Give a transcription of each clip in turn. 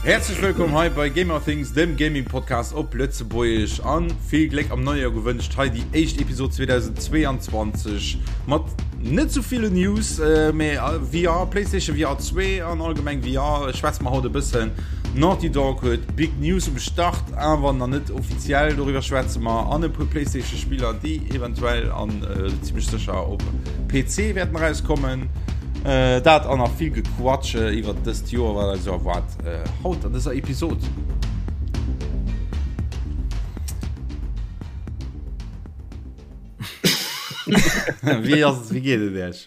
Häerzlech wëllkomm hei bei Gamerthings, dem Gaming Podcast op Lëtzebuergesch an vill Gléck am neie Joer gewënscht. Hei déi éischt Episod 2022 mat net sou ville News, äh, mee VR, PlayStation VR 2 an allgemeng VR schwätze mer haut e bëssen. Naughty Dog huet Big News um Start, awer nach net offiziell, doriwwer schwätze mer an e puer PlayStation Spiller, déi eventuell an äh, zimmlech sécher op PC wäerten erauskommen. Äh, dat an nach vill Gequatsche iwwer dëst Joer, wat eis erwaart äh, haut an dëser Episod. Wéi ass et, wéi geet et Iech?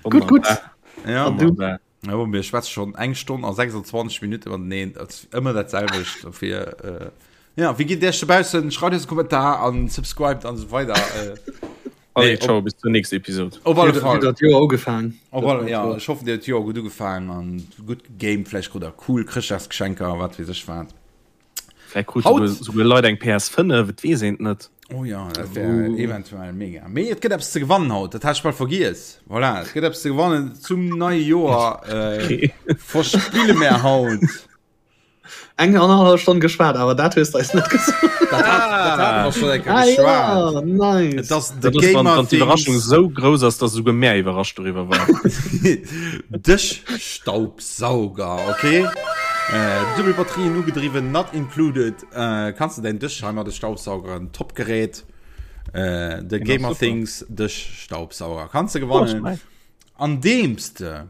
Gutt, gutt. Ja, An du? Ja, mir schwätze schon eng Stonn a 26 Minuten mateneen, dat ass ëmmer dat selwecht dofir. Äh, ja, wéi geet et Iech dobaussen? Schreift eis e Kommentar an subscribed an esou weider. Äh, Allez, ciao, bis zur nächsten Episode. Op alle Fall. Dat Joer ugefaang. Op alle, ja, ech hoffen, dir huet d'Joer gutt ugefaang an gutt gegamed, vläicht krut der cool Chrëschtdagsgeschenker, wat weess ech wat. Vläicht krut souguer, souguer Leit eng PS5, et weess een et net. Oh ja, dat wär uh. eventuell mega. Mee et gëtt eppes ze gewannen haut, dat hat ech bal vergiess. Voilà, et gëtt eppes ze gewannen zum neie Joer. Äh, verspille mer haut. Eng annerhallef Stonn geschwat, awer dat hues de eis net gesot. Dat hat, dat hat mer schon eng Kéier Ah geschwat. ja, nice. Et ass de Dat ass, wann, Gamer wann d'Iwwerraschung Things esou grouss ass, dass esouguer mär iwwerrascht doriwwer waren. Dëschstaubsauger, okay? Äh, dubbel Batterien ugedriwwen, not included. Äh, kanns de däin Dësch heimat de Staubsaugeren, top Gerät. Äh, de Deen ass Gamer super. Things Dëschstaubsauger kanns de Oh, gewannen, nice. andeems de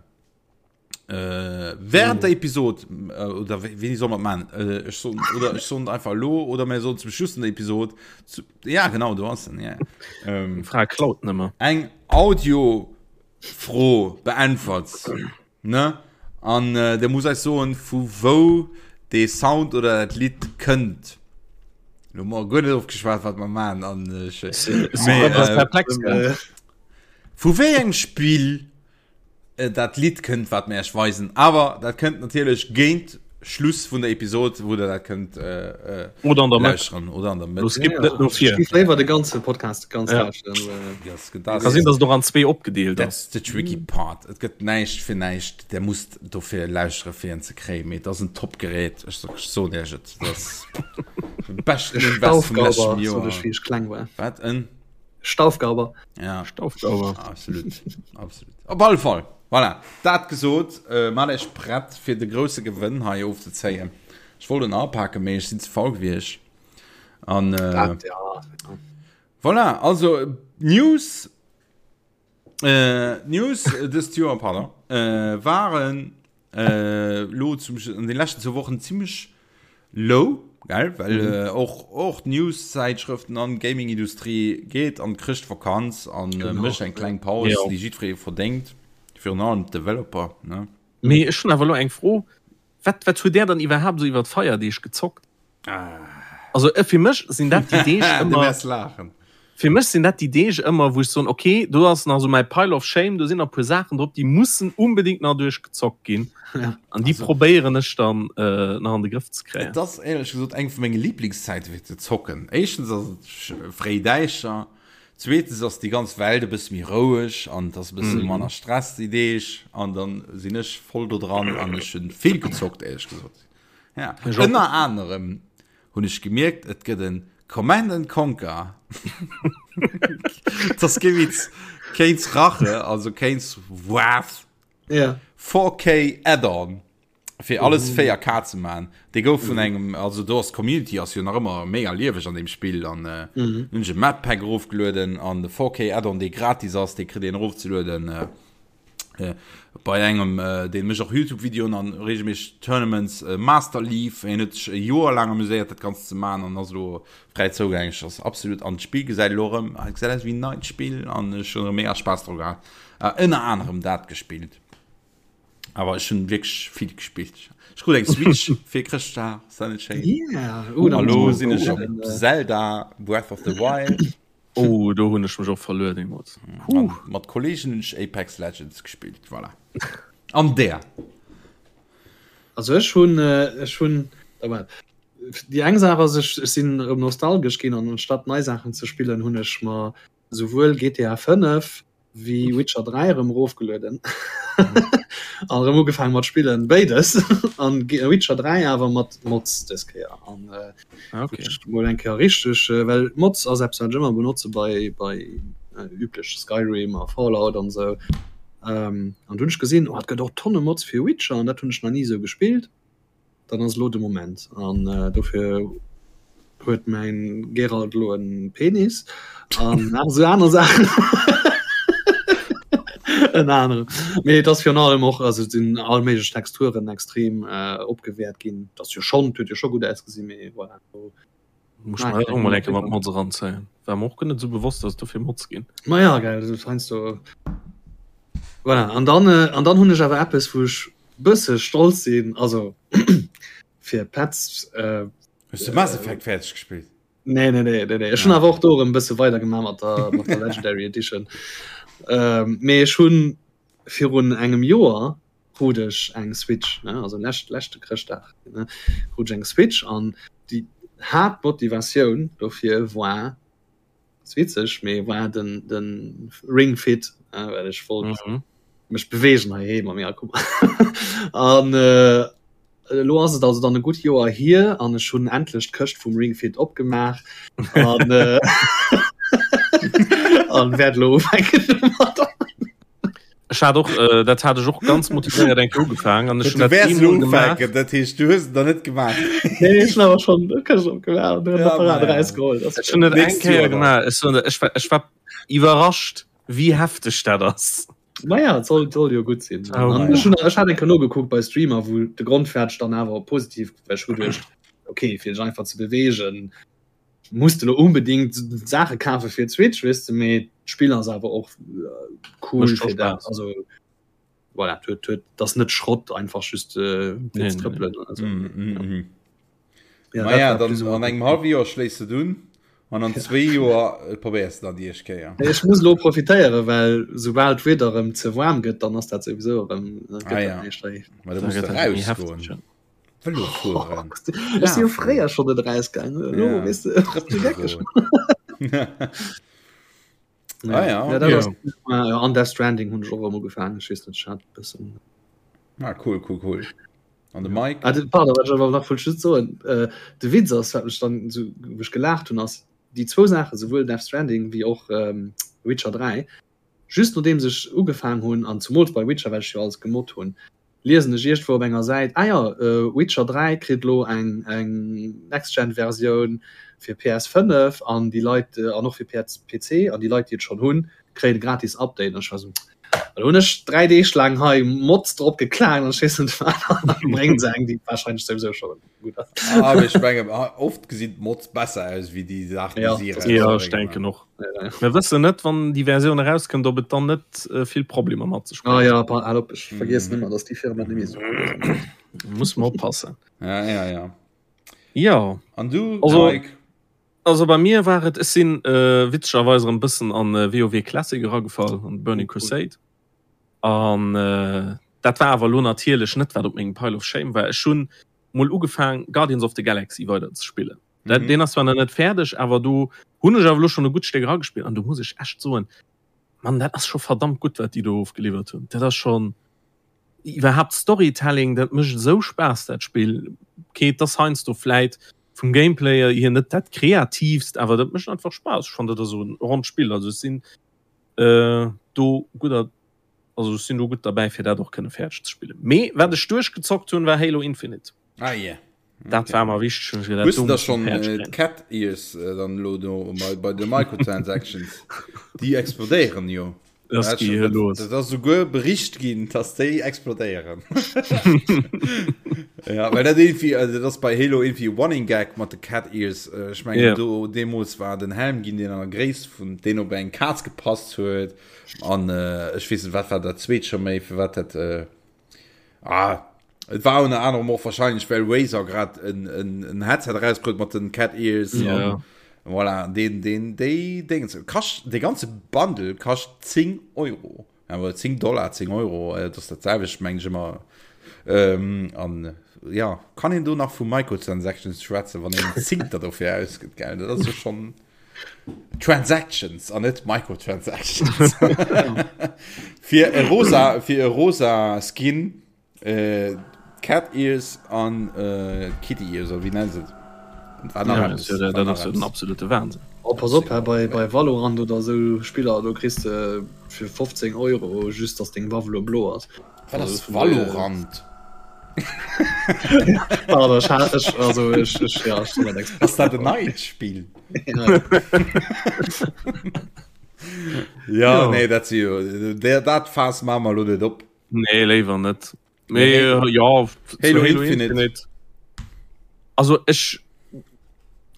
Äh, während der Episode äh, oder wéini soll man man äh, ech so, oder ech soen einfach lo oder mir soen zum Schluss der Episode zu, ja genau du hast den, ja. ähm, Fra klaut nëmmer. eng Audiofro beäntwert ne an äh, der muss eis soen vu wou dee Sound oder dat Lidd kënnt. Lo mar guer net ofgeschwat wat mer man an ech Mee, äh, perplex gell? vu wéi engem Spill dat Lidd kënnt wat mir Iech weisen awer dat kënnt natierlech géint Schluss vun der Episod wou der dat kënnt äh, äh, oder an der Mëtt lauschteren oder an der Mëtt. Lo skippt net no vir. Ech léiwer de ganze Podcast ganz Ja. lauschteren. Äh, Das, das, Ka sinn, dass et och an zwee opgedeelt ass. That's the tricky part. Et gëtt näischt fir näischt. Der musst dofir lauschtere fir en ze kréien. Mee et ass en Top-Gerät. Ech so- ech soen Iech et. Dat ass de beschten Invest vum Staufgauber, leschten sot Joer. ech, wéi ech kleng war. Wat en? Staufgauber. Ja. Staufgauber. Absolut. Absolut. Op alle Fall. Voilà. Dat gesot, äh, mat Iech prett fir de grousse Gewënn hei ofzezéien. Ech wollt en apaken, mee ech sinn ze faul gewiescht. An äh, Dat, ja. voilà, also News äh, News äh, dëst Joer, pardon, äh, waren äh, lo zum, an den leschten zwou Wochen zimmlech low, gell? Well mhm. äh, och, och News-Zäitschrëften an Gaming-Industrie geet an Chrëschtvakanz an äh, mécht eng kleng Paus, Ja. déi jiddweree verdéngt, virun allem d'Developer, ne? Mee ech hunn awer elo eng Fro, Wat, wat hutt Där dann iwwerhaapt esou iwwer d'Feierdeeg gezockt? Also äh, fir mech sinn dat déi Deeg Du ëmmer, wäers laachen. fir mech sinn dat déi Deeg ëmmer, wou ech soen, okay, do ass nach esou mäi Pile of Shame, do sinn nach e puer Saachen drop, déi mussen unbedingt nach duerchgezockt ginn. Ja. An déi Also- probéieren ech dann äh, nach an de Grëff ze kréien. Et ass éierlech gesot eng vu menge Liblingszäite fir ze zocken. Éischtens ass et sch- fréi däischter, zweetens ass déi ganz Welt e bësse méi roueg an et ass e bësse manner Stress déi Deeg an dann sinn ech voll do dran an ech hunn vill gezockt éierlech gesot. Ja. Ech och. Ënner anerem hunn ech gemierkt, et gëtt en Command and Conquer. Dat ass kee Witz. Kane's Rache, also Kane's Wrath. Ja. 4K Add-on fir alles 4K ze man. Dee gouf vun engem, also do ass d'Community ass jo nach ëmmer mega lieweg an deem Spill an äh, hunn ech e Map Pack erofgelueden an de 4K Add-on dee gratis ass, dee kritt een erofzelueden. Äh, äh, bei engem äh, deen mécht och YouTube-Videoen an regelméisseg Tournaments, äh, Master Leaf, en huet sech e Joer laang amuséiert dat Ganzt ze man an ass elo fräi zougänglech. Ass absolut an d'Spill gesäit elo erëm, gesäit aus wéi en neit Spill an ech hunn erëm mega Spaass dru gehat. Äh, ënner anerem dat gespillt. Awer ech hunn wierklech vill gespillt. Ech krut eng Switch fir Chrëschtdag, ass dat net schéin? Yeah. Oh, A lo sinn ech op äh, Zelda Breath of the Wild. Oh, do hunn ech mech och verluer deemools. An mat Kolleegen hunn ech Apex Legends gespillt, voilà. An där? Also ech hunn äh, ech hunn oh, déi eng Saach ass ech, ech sinn erëm nostalgesch ginn an anstatt nei Saachen ze spillen hunn ech mer souwuel GTA 5. Wéi Witcher 3 erëm erofgelueden an erëm ugefaangen mat spillen, béides an Witcher 3 awer mat Mods dës Kéier an äh, okay. mol eng Kéier richteg äh, well Mods ass eppes wat ech ëmmer benotze bei bei äh, üblech Skyrim a Fallout an sou ähm, an dunn ech gesinn oh, et gëtt och tonne Mods fir Witcher an dat hunn ech nach ni sou gespillt. Dann ass elo de Moment an dofir huet mäin Geralt elo en Penis an nach esou aner Saachen. Ënner anerem. Mee et ass virun allem och, also et sinn all méiglech Texturen extrem opgewäert ginn. Et ass jo schonn, et huet jo scho gutt ausgesinn, mee voilà. Muss ech mer och mol eng Kéier mat Mods eranzéien. War mer och guer net esou bewosst, dass et dofir Mods ginn. Ma ja, gell, dat ass heiansdo. Voilà, an dann, an dann hunn ech awer eppes, wou ech bësse stolz sinn, also fir Petz. Äh, Hues du Mass Effect fäerdeg gespillt? Nee, nee, nee, nee, nee. Ech hunn awer och do erëm bësse weider gemaach mat der, mat der Legendary Edition. Ähm, mee ech hunn virun engem Joer krut ech eng Switch, ne, also lescht, leschte Chrëschtdag, ne, krut ech eng Switch an déi Haaptmotivatioun dofir war, ass witzeg, mee war den, den Ring Fit, ne, well ech wollt mhm. mech bewegen heiheem a mir guck an äh, elo ass et also dann e gutt Joer hier an ech hunn endlech d'Këscht vum Ring Fit opgemaach an äh, an wäert elo ufänken domadder. Ech hat och äh, dat hat ech och ganz motivéiert eng Kéier ugefaangen an ech hunn dat eemol gemaach. Dat heescht du hues et nach net gemaach. Nee, ech hunn awer schonn d'Këscht opgemaach an den Apparat erausgeholl. Ech hunn et eng Kéier gemaach. Ech soen der, ech war, ech war iwwerrascht, wéi hefteg dat ass. Naja, et soll, soll jo gutt sinn. Oh, An ech hunn, ech hat eng Kéier nogekuckt bei Streamer, wou de Grondfäerdeg dann awer positiv, well ech hu geduecht, okay, fir sech einfach ze beweegen, muss de lo unbedingt Saache kafe fir d'Switch, weess de, mee d'Spill ass awer och cool fir dat. Also voilà, huet, huet, das net Schrott einfach just äh, nee, trëppelen. Nee. Also, mm, mm, ja. Mm. Ja, Ma ja, dann an engem halwe Joer schléiss de dunn an an zwee Joer äh, probéiers du dann déi éischt Kéier. Ech muss lo profitéieren, well soubal d'Wieder erëm ze waarm gëtt, dann ass dat souwisou erëm ah, ja. Ma du musst rausgoen. Vëlo fueren. Ech si jo fréier schonn net erausgaangen. Elo, ja. weess de, Ah, ja, ja, dat ass, ja. An Death Stranding hunn ech och erëm ugefaangen. Ech weess net, ech hat e bëssen. Ah, cool, cool, cool. An de Mike? Ah, de, pardon, wat ech awer nach wollt just soen, äh, de Witz ass, wat mech dann esou, wou ech gelaacht hunn, ass déi zwou Saachen, souwuel Death Stranding wéi och ähm, Witcher 3, just nodeems ech ugefaang hunn, an zumools bei Witcher, well ech jo alles gemoddt hunn, liesen ech iergendwou op enger Säit, ah jo, Witcher 3 kritt elo eng eng Next-Gen-Versioun fir PS5 an déi Leit, an och fir PC, an déi Leit, déi et schonn hunn, kréien e gratis Update. An ech war esou, elo hunn ech 3 Deeg laang hei Mods drop geklaangt an ech weess net wat, an da bréngen se eng, déi warscheinlech souwisou scho gutt ass. Ah, mee ech mengen, oft gesinn d'Mods besser aus wéi déi Saachen, déi si erausbréngen. Jo, ech denken och. Mir wëssen net, wann déi Versioun erauskënnt, ob et dann net äh, vill Problemer mat sech bréngt. Ah ja, pa, al op, ech vergiessen ëmmer, dass déi Firma net méi esou cool ass. Muss man oppassen. Ja, ja, ja. Ja. An du, also, Mike? Also bei mir war et, ech sinn äh, witzegerweis erëm bëssen an äh, WoW Classic eragefall, an Burning oh, cool. Crusade. An äh, dat war awer lo natierlech net, wat op mengem Pile of Shame war. Ech hunn mol ugefaang Guardians of the Galaxy weider ze spillen. Dat, mhm. Den ass zwar nach net fäerdeg, awer do hunn ech awer lo schon e gutt Stéck eragespillt an do muss ech echt soen, Mann, dat ass scho verdammt gutt, wat déi do ofgeliwwert hunn. Dat ass schon iwwerhaapt Storytelling, dat mécht esou Spaass dat Spill. Okay, et ass heiansdo vläit vum Gameplay hier net dat kreativst, awer dat mécht einfach Spaass. Ech fannen dat ass esou en ronnt Spill. Also ech sinn äh, do gudder also ech sinn do gutt derbäi fir dat och kënne fäerdeg ze spillen. Mee wat ech duerchgezockt hunn, war Halo Infinite. Ah yeah. Dat war mer wichteg. Hues du da schon äh, d'Cat Ears äh, dann lo do bei, bei de Microtransactions? Déi explodéieren jo. Das Dat geet dat, los. dat ass souguer bericht ginn, dass déi explodéieren. ja, well dat irgendwie, also dat ass bei Halo irgendwie Running Gag mat de Cat Ears. Äh, Ech mengen, Ja. do deemools war den Helm ginn, deen an der Gréisst vun deen op eng Kaz gepasst huet. An äh, ech weess net, wat war dat zweet scho méi, firwat dat äh, Ah, et war ënner anerem och wahrscheinlech well Razer grad en, en, en Headset erausbruet mat den Cat Ears. Ja. An, voilà, den, den, déi Dingens. Kascht, de ganze Bundle kascht 10 Euro. Awer 10 Dollar, 10 Euro, äh, das dat selwecht meng ech ëmmer. Ähm, an ja, kann een do nach vu Microtransactions schwätzen, wann een 10 der dofir ausgëtt, gell? Dat ass jo schon. Transactions an net Microtransactions. Fir e rosa, fir e rosa Skin, äh, Cat Ears an äh, Kitty Ears, oder wéi nennen se et? War nach ja, eppes, ja, dat ass jo den absolute Wahnsinn. Oh, pass op, hä, bei, bei Valorant oder sou Spiller, do kriss de fir 15 Euro just, dass deng Waff elo blo ass. Wat ass Valorant? Pardon, ech hat, ech, also ech, ech, ja, ech sinn net Experte. Ass dat en neit Spill? Ja, ja, nee, dat si jo, dat Faass maache mer elo net op. Nee, léiwer net. Mee äh, ja, Halo, Halo Infinite. Infinite. Also ech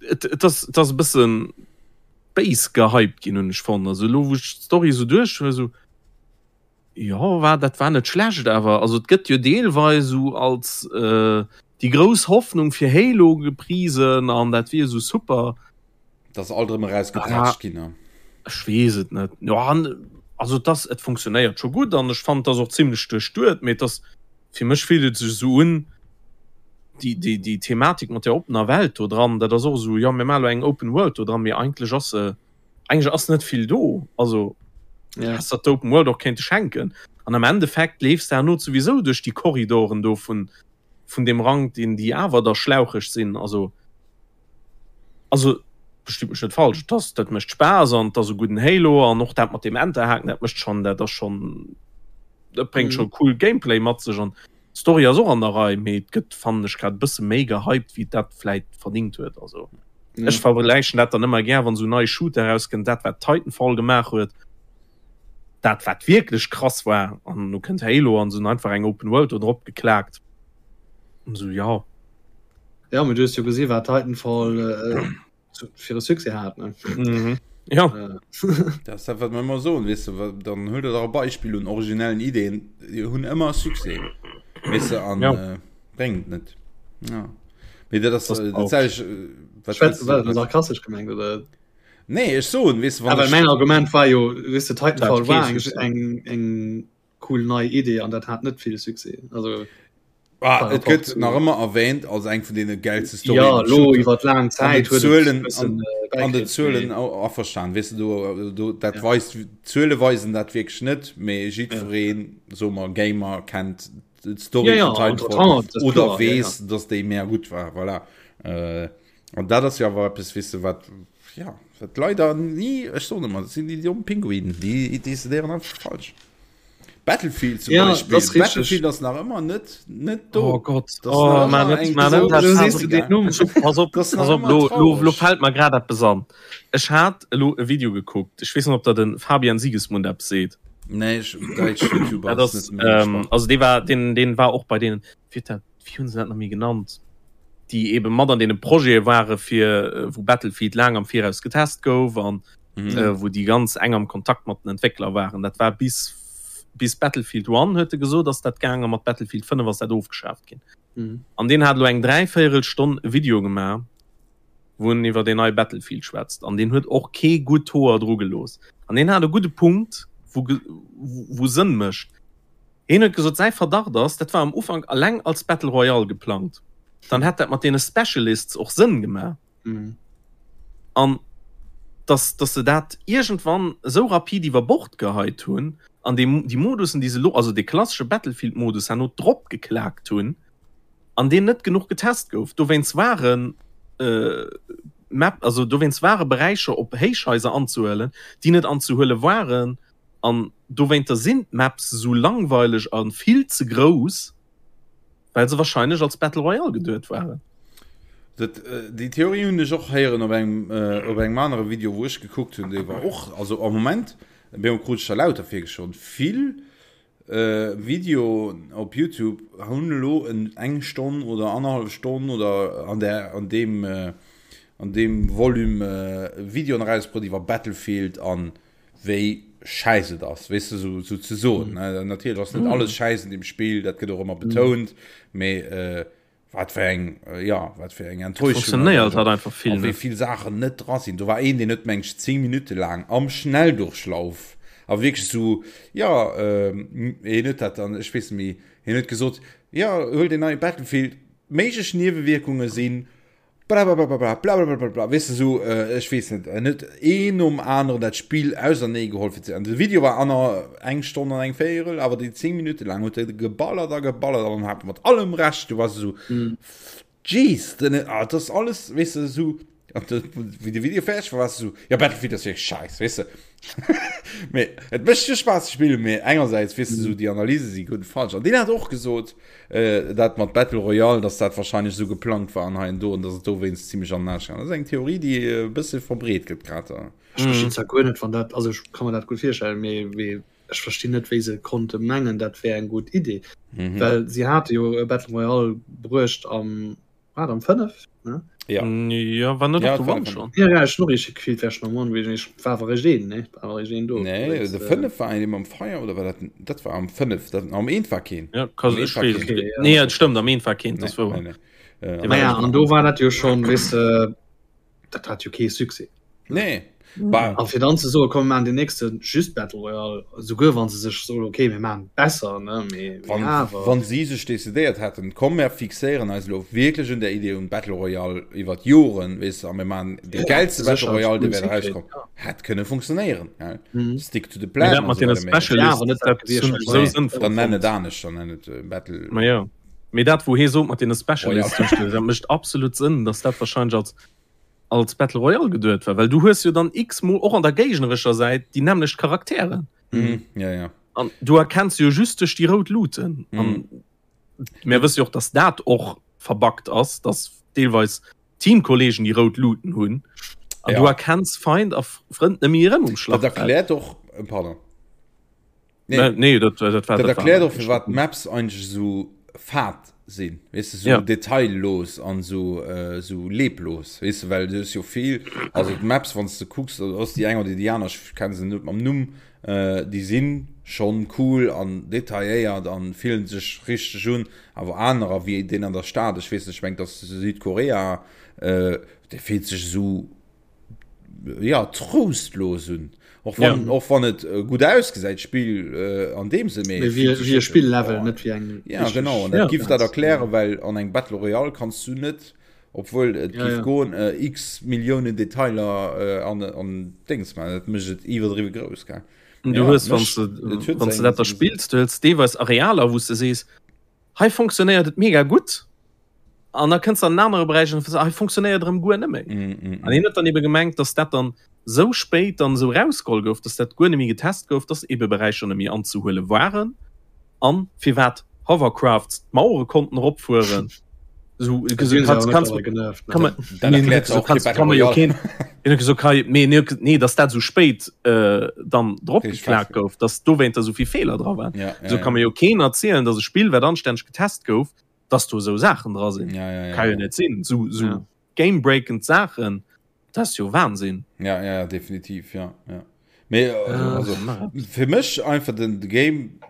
et, et ass, et ass e bëssen béis gehypt ginn hunn ech fonnt. Also elo wou ech d'Story esou duerch hu esou Jo war dat war net schlecht awer also et gëtt jo deelweis esou als äh, déi grouss Hoffnung fir Halo geprisen an dat wier esou super. Dat ass alt erëm erausgepeitscht ginn ne? Ech weess et net. Jo an also et ass et funktionéiert scho gutt an ech fannen et ass och zimlech duerchduet, mee et ass fir mech fillt et sech esou un déi déi déi Thematik mat der oppener Welt do dran, dat ass och esou jo mir maache lo eng Open World do dran, mee eigentlech ass se Eigentlech ass net vill do, also ja. Häss der d'Open World och kéinte schenken. An am Endeffekt leefs de herno souwisou duerch déi Korridoren do vun, vun deem Rank, deen déi awer da schlaucheg sinn. Also, also verstitt mech net falsch, et ass, dat mécht Spaass an et ass e gudden Halo an och dat mat deem Enterhaken, dat mécht schonn, dat ass schonn, dat bréngt scho cool Gameplay mat sech an d'Story ass och an der Rei, mee et gëtt, fannen ech, grad e bësse méi gehypt, wéi et dat vläit verdingt huet. Also. Ja. Ech vergläichen dat dann ëmmer gär, wann esou nei Shooter erauskënnt, dat wat Titanfall gemaach huet, dat wat wierklech krass war, an lo kënnt Halo an se hunn einfach eng Open World do drop geklaakt. An esou, ja. Ja, mee du hues jo gesi wat Titanfall äh, fir e Succès hat, ne? Mhm. Ja. Äh. Dat ass dat, wat mer ëmmer soen, weess de, dann huel der dach e Beispill un originellen Ideen, déi hunn ëmmer Succès, weess de, an ja. äh, bréngt net. Ja. Mee dat ass, äh, dat sag ich, äh, wat Schwätz, war dat sarkastesch gemengt oder? Nee, ech soen, weess du, wann Awer mäin Argument war jo, weess de, Titanfall war eng, eng, eng cool nei Idee an dat hat net vill Succès. Also Ah, et gëtt nach ëmmer erwähnt als eng vun deene geilste Storyen. Ja, lo iwwer laang Zäit huet et bëssen an den Zuelen averstan, weess du, do, do, dat ja. weist, d'Zuele weisen dat wierklech net, mee jiddwereen, ja. so mer Gamer kennt d'Story ja, ja, vun Titanfall oder weess, ja, ja. dass déi mega gutt war, voilà. Äh, an dat ass jo awer eppes, weess du, wat, ja, wat leider ni, ech soen ëmmer, dat sinn déi domm Pinguinen, déi decidéieren einfach falsch. Battlefield zum ja, Beispiel. Das Battlefield ass nach ëmmer net net do. Oh Gott oh, man, net, man, net, pass op, pass op, lo, lo, lo fällt mer grad eppes an. Ech hat elo e Video gekuckt. Ech weess net, ob der den Fabian Siegesmund eppes seet. Nee, ech, däitsch YouTuber ass net méi ähm, Also dee war, den, den war och bei deenen, wéi dat, wéi hunn se dat nach méi genannt? Déi eben mat an deene Projete ware fir, äh, wou Battlefield laang am Viraus getest gouf an mhm. äh, wou déi ganz eng am Kontakt mat den Entwéckler waren. Dat war bis, bis Battlefield 1 huet e gesot, ass dat gaangen, mat Battlefield 5 ass dat ofgeschaaft ginn. Mhm. An deen hat elo eng dräivéierel Stonn e Video gemaach, wou en iwwer deen neie Battlefield schwätzt. An deen huet och kee gutt Hoer dru gelooss. An deen hat e gudde Punkt, wou, wou Sënn mécht. Hien huet gesot, säi Verdacht ass, dat war am Ufank alleng als Battle Royale geplangt. Dann hätt dat mat deene Specialists och Sënn gemaach. An dass, dass se dat iergendwann esou rapid iwwer Bord geheit hunn an déi, déi Modussen, déi se elo, also dee klassesche Battlefield-Modus herno drop geklaakt hunn an deen net genuch getest gouf. Dowéinst waren Map, also dowéinst ware Beräicher op Héichhaiser anzehuelen, déi net anzehuele waren an dowéinter sinn d'Maps esou langweileg a vill ze grouss. Well se wahrscheinlech als Battle Royale geduet waren. Dat, déi Theorie hunn ech och héieren op engem, op engem anere Video, wou ech gekuckt hunn, dee war och, also am Moment, bemo krut ech der lauter virgeschloen, vill Videoen op Youtube hunn elo en eng Stonn oder annerhallef Stonn oder an där, an deem, an deem Volume Videoen erausbruet iwwer Battlefield an wéi schäiss et ass, weess de, sou, sou ze soen. Mm. Natierlech ass net mm. alles schäiss in dem Spiel, dat gëtt och ëmmer betount, mm. mee äh, wat fir eng äh, ja wat fir eng Enttäuschung funktionéiert hat einfach vill wéi vill Sachen net dra sinn. Do war een, deen huet meng 10 Minute laang am Schnelldurchlauf a wierklech sou ja äh, hien huet dat dann ech weess méi hien huet gesot ja huel den neie Battlefield méiglech Niewewierkunge sinn. Blablabla, blablabla, weess de sou, ech weess net, en huet een nom aneren dat Spill ausernee geholl fir ze, an de Video war aner eng Stonn an eng Véierel, awer déi 10 Minutte laang huet e geballert a geballert an hat mat allem Recht, du wars esou, Jeez, den, ah, dat ass alles, weess de, esou, an de, wéi de Video fäerdeg war, wars de esou, jo, Battlefield ass wierklech scheiss, weess de. Mee et mécht jo Spaass ze spillen, mee engersäits, weess de, esou déi Analyse si gutt falsch. An deen hat och gesot, äh, dat mat Battle Royale, dass dat wahrscheinlech esou geplangt war an hei an do an dass et dowéinst zimmlech an den Aarsch gaangen ass. Dat ass eng Theorie, déi e bësse verbreet gëtt grad. Ech verstinn zwar guer net, wann dat, also ech ka mer dat gutt virstellen, mee mee ech verstinn net, wéi se konnte mengen, dat wär eng gutt Idee. Well si hate jo e Battle Royale bruecht am War am 5 ne? Ja. Ja, war net ja, op de schon. Ja, ja, noch ich gefielt wär schon am One ich war awer réischt een ne war awer réischt een do. Nee, de 5 war een am Feier oder war dat dat war am 5 dat am eent war keen. Ja, kann ich war keen. Okay, ja. Nee, dat stëmmt am eent war keen, das war. Nee, nee. Äh, ja, an do war dat jo schon wis äh, dat hat jo kee Succès. Nee. A fir dann ze soen, komm mir maachen den nächste just Battle Royale, souguer wann se sech soen, okay mir maachen besser, ne, mee wann, awer. Wann si sech decidéiert hätten, komm mir fixéieren eis elo wierklech un der Idee un Battle Royale iwwer d'Joren, weess de, a mir maachen dee gäilste Battle Royale, dee wäert erauskomm, hätt kënne funktionéieren, gell? Stick to the plan. Mee dat mat deene Specialists, dat hunn ech esou sënnvoll Dann nenn et anescht, dann nenn et Battle. Ma jo. Mee dat wou hee sot mat deene Specialists, dat mécht absolut Sënn, datt dat wahrscheinlech als als Battle Royale geduet war, well du hues jo dann x-mol och an der géignerescher Säit déi nämmlecht Charakteren. Mhm, ja, ja. An du erkenns se jo just duerch déi rout Luuten. Mhm. An mir wësse jo och, datt dat och verbuggt ass, datt deelweis Teamkollegen déi rout Luuten hunn. An ja. du erkenns Feind a Frënd net méi erëm um Schlachtfeld. Dat erkläert och, äh, pardon. Nee, nee dat, dat, dat, dat erkläert och firwat d'Maps eigentlech esou fad sinn, weess de, sou ja. detaillos an sou äh, sou leblos, weess de, well du hues jo vill, also d'Maps wann s de kucks, ass déi eng oder déi aner, ech kenne se net mam Numm, äh, déi sinn schonn cool an detailléiert an fillen sech richteg un, awer anerer wéi deen an der Stad, ech weess net, ech mengen et ass Südkorea, äh, dee fillt sech esou ja trostlos un och wann, ja. och wann et äh, gut ausgesäit Spiel äh, an dem se méi wie, wie Spiellevel oh. net wie eng ja genau ja, dat gift dat erklären well an eng Battle Royale kannst du net obwohl et ja, ja. goen äh, x Millionen Detailer äh, an an Dings man dat mécht et iwwerdriwwe grouss gell du ja, hues wann du wann du dat da spills du hues deelweis Arealer wou du sees hei funktionéiert et mega gutt an da kënns an anere Beräicher an hei funktionéiert erëm guer net méi. Mm, mm, an hien huet dann ebe gemengt, dass dat dann sou spéit dann esou rausgeholl gouf, dass dat guer net méi getest gouf, dass ebe Beräicher net méi anzehuele waren an firwat Hovercrafts d'Mauere konnten eropfueren. So, nee dass dat sou spéit äh, dann drop geklagt gouf, dass dowéinter sou vill Feeler dra waren. Ja, ja, so kann mir jo keen erzielen, dass e Spill wat anstänneg getest gouf, dass do sou Saachen dra sinn. Ja, ja, ja, kann jo net sinn. So, so ja. gamebreakend Saachen, dat ass jo Wahnsinn. Ja, ja, definitiv, ja, ja. Mee, äh, also, fir mech einfach den Game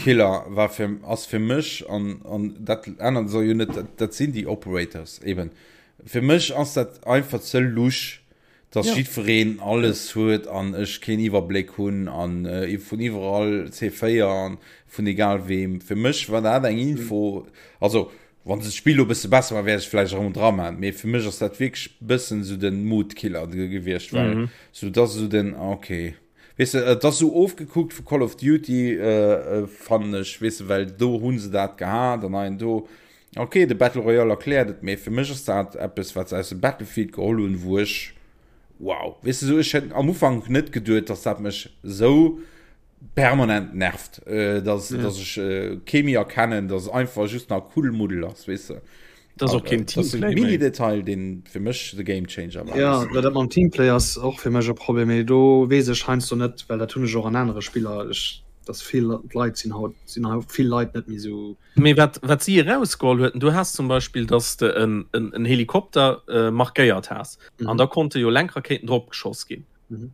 Killer war fir, ass fir mech an, an dat ännert soll jo net, dat, dat sinn déi Operators eben. Fir mech ass dat einfach ze lusch, dass ja. jiddwereen alles huet an ech keen Iwwerbléck hunn an äh, vun iwwerall C4 an vun egal wem. Fir mech war dat eng Info, also wann se d'Spill lo bësse besser war, wär ech vläicht erëm dra man. Mee fir mech ass dat wierklech bëssen sou den Mood-Killer gewiescht, well mhm. sou dat sou den okay. Weess de, et ass sou ofgekuckt vu Call of Duty, äh, äh, fannen ech, weess de, well do hunn se dat gehat an hei an do. Ok, de Battle Royale erkläert et, mee fir mech ass dat eppes, wat se aus dem Battlefield geholl hunn, wou ech, wow, weess de, sou ech hätt am Ufank net geduet, dass dat mech sou permanent nervt, äh, dass, ja. dass ech äh, kee méi erkennen, dass es einfach just nach Kuddelmuddel ass, weess de. Das och keen Teamplay. Mini-Detail, deen fir mech de Game Changer war. Ja, dat mam Teamplay ass och fir mech e Problem, mee do weess ech heiansdo net, well dat hunn ech och an anere Spiller, ech, dass vill Leit sinn haut, sinn haut vill Leit net méi sou. Mee wat, wat si erausgeholl huet, du has zum Beispill, dass de en, en, en Helikopter äh, markéiert has mhm. an da konnte jo Lenkrakéiten drop geschoss ginn. Mhm.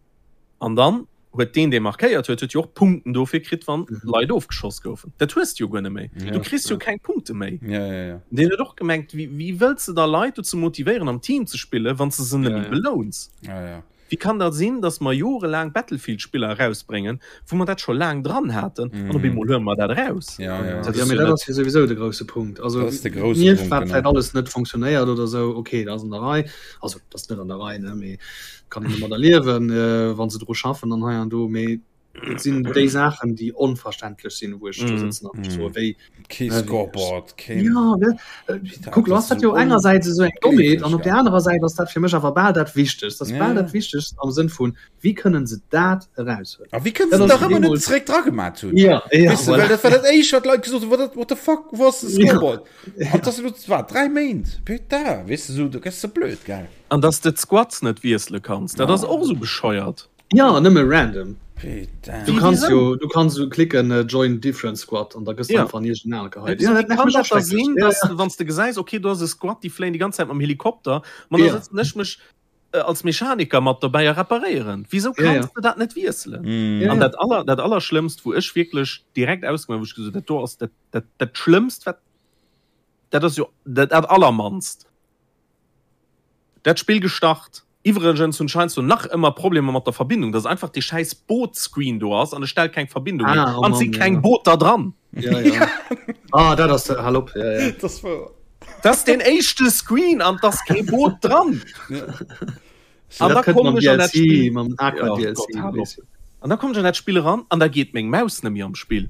An dann huet deen, dee markéiert huet, huet jo och Punkten dofir kritt, wann mhm. Leit ofgeschoss goufen. Dat hues du jo guer net méi. Ja, du kriss jo ja. keng Punkte méi. Ja, ja, ja. Deen huet och gemengt, wéi, wéi wëlls de da Leit dozou motivéieren, am Team ze spillen, wann s de se net ja, méi ja. belouns? Ja, ja. Wéi kann dat sinn, dass mer jorelaang Battlefield-Spiller erausbréngen, wou mer dat scho laang dran haten, an op eemol huele mer dat eraus? Ja, ja. Dat ass jo net. Dat ass jo souwisou de grousse Punkt. Also, dat ass de grousse Punkt, wat vläicht alles net funktionéiert oder esou, okay, dat ass an der Rei. Also, dat ass net an der Rei, ne, mee kann een domadder liewen, wa se dru schaffen an hei an do. Mee et sinn déi Saachen, déi onverständlech sinn, wou ech do sëtzen an mech soe, wéi. Kee Scoreboard, keen. Ja, ne, kuck, lo ass dat jo engersäits esou eng Dommheet an op där anerer Säit ass dat fir mech awer bal dat Wichtegst. Dat ass bal dat Wichtegst am Sënn vun, wéi kënnen se dat eraushuelen? A wéi kënnen se nach ëmmer net zeréck dra gemat hunn? Ja, ja, Weess de, well dat war dat éischt, wat d'Leit gesot hunn, what the, what the fuck, wou ass de Scoreboard? An dat ass elo, wat, 3 Méint? Putain, weess de, esou, do gëss de blöd, gell? An dass de d'Squads net wiessele kanns, dat ass och esou bescheuert. Ja, nëmme random. Putain. Du kanns jo, du kanns jo klicken äh, join different squad an da gëss du Ja. einfach an iergend en geheit. Ja, Ja, dat kann nervt mech dat och da schrecklech. sinn, Ja, dass ja. wann s de gesäis, okay, do ass e Squad, déi fléien déi ganz Zäit mam Helikopter, ma da Ja. sëtzen ech mech äh, als Mechaniker mat dobäi a reparéieren. Wisou Ja, kanns ja. de dat net wiesselen? Mm. Ja, An ja. dat aller, dat Allerschlëmmst, wou ech wierklech direkt ausgemaach, wou ech gesot, dat do ass dat, dat, dat Schlëmmst, wat, dat ass jo dat, dat Allermannst. Dat Spill gestart. Iwwregens hunn ech heiansdo nach ëmmer Problemer mat der Verbindung, dass einfach dee schäiss Boot-Screen do ass an e stellt keng Verbindung hier Ah, oh an et si Mann, keng ja. Booter dran. Ja, ja. Ah, dat ass, hal op, ja, ja. Dat ass wouer. Dat ass deen éischte Screen an et ass kee Boot dran. An Dat da kënnt kommen mam ech an dat DLC, Spill. mam Aqua Oh DLC, Gott, hal op. weess jo. An da kommen ech an dat Spill eran an da geet meng Maus net méi am Spill.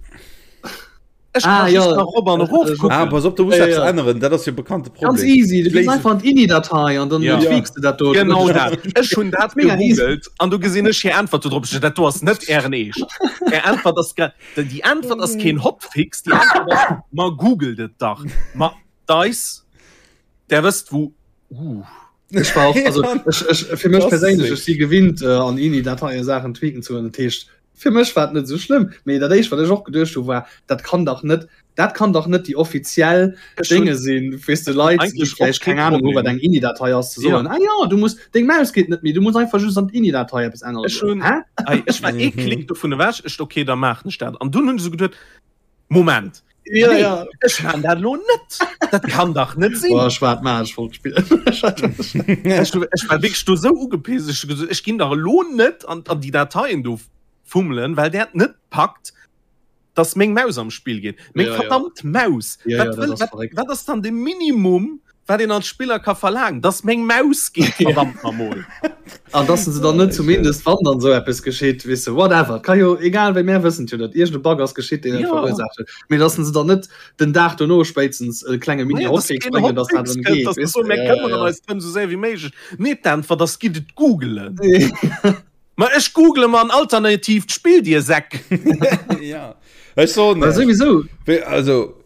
Ech Ah, kann ja. just nach op an erof Ah, kucken. Ah, pass op, du muss Ja, eppes ja. änneren, dat ass jo bekannte Ganz Problem. easy, du gees Léisen- einfach an d'INI-Datei an dann Ja. tweaks du dat do. Genau dat. Ech hunn dat Mega easy. gegoogelt an du gesinn ech hir Äntwert do drop. Ech Dat do ass net ären Eescht. Är Äntwert ass gra- déi Äntwert ass keen Hotfix, déi Äntwert ass, ma googelt et dach. Ma Dice, der wësst wou. Uh. Ech war och, also, ech, ech, fir mech Das perséinlech, sick. ech si gewinnt äh, an INI-Dateie Saachen tweaken ze hunn. Dat heescht, fir mech war et net esou schlëmm. Mee dat éischt, wat ech och geduecht hu war, dat kann dach net, dat kann dach net déi offiziell Ech hunn Dénge sinn, weess de, Leit, déi eigentlech och vläicht kee keng Ahnung hu wat Problem. eng INI-Datei ass, ze Ja. soen, ah ja, du muss, deng Maus geet net méi, du muss einfach just an d'INI-Datei eppes änneren. Ech hunn, Hä? ei, ech war ee Mhm. Klick dovun ewech, ech, okay, da maachen ech dat. An dunn hunn ech esou geduet, Moment, Ja, nee, ja. ech maan dat lo net. Dat kann dach net sinn. Boah, ech war et ech wollt spillen. Ech, ech war wierklech do sou ugepisst. Ech hu gesot, ech ginn dach elo net an, an déi Dateien do fummelen, well där et net packt, dass meng Maus am Spill geet. Meng Ja, ja. verdammt Maus! Ja, Wat ja, dat wëll, ass wat, verréckt. wat ass dann de Minimum, wat een als Spiller ka verlaangen? Dass meng Maus geet, verdammt namol! An dass se dann net zumindest wann dann sou eppes geschitt, weess de, whatever, ka jo egal wéi, mär wëssen jo, datt iergend e Bug ass geschitt, deen et Ja. verursaacht huet, mee dass se dann net den Dag dono spéitstens e klenge Naja, dass Mini-Hotfix keen bréngen, dass dat Hotfix dann kënnt, geet, dass se weess soen, de, mär ja, ja, këmmeren ja. eis drëm sou séier wéi méiglech. Nee, d'Äntwert ass, gitt et googelen. Ma ech google mer en alternatiivt Spill, dir Säck! Ja, ech soen Well iech, souwisou, wéi, also,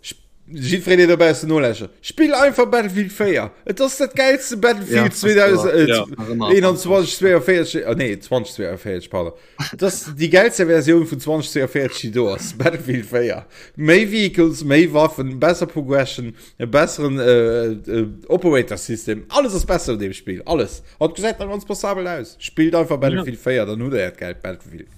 jiddwereen, deen dobaussen nolauschtert, spill einfach Battlefield 4. Et ass dat gäilste ja, Battlefield ass wouer. Ja. Nach ëmmer 2021, 42, ah nee, 2042, pardon. Et ass déi gäilste Versioun vun 2042, déi do ass, Battlefield 4. Méi Vehicles, méi Waffen, besser Progression, e besseren äh, äh, Operator System. Alles ass besser an deem Spill, alles. An et gesäit nach ganz passabel aus. Spillt einfach Battlefield 4, dann hutt der äert gäilt Battlefield.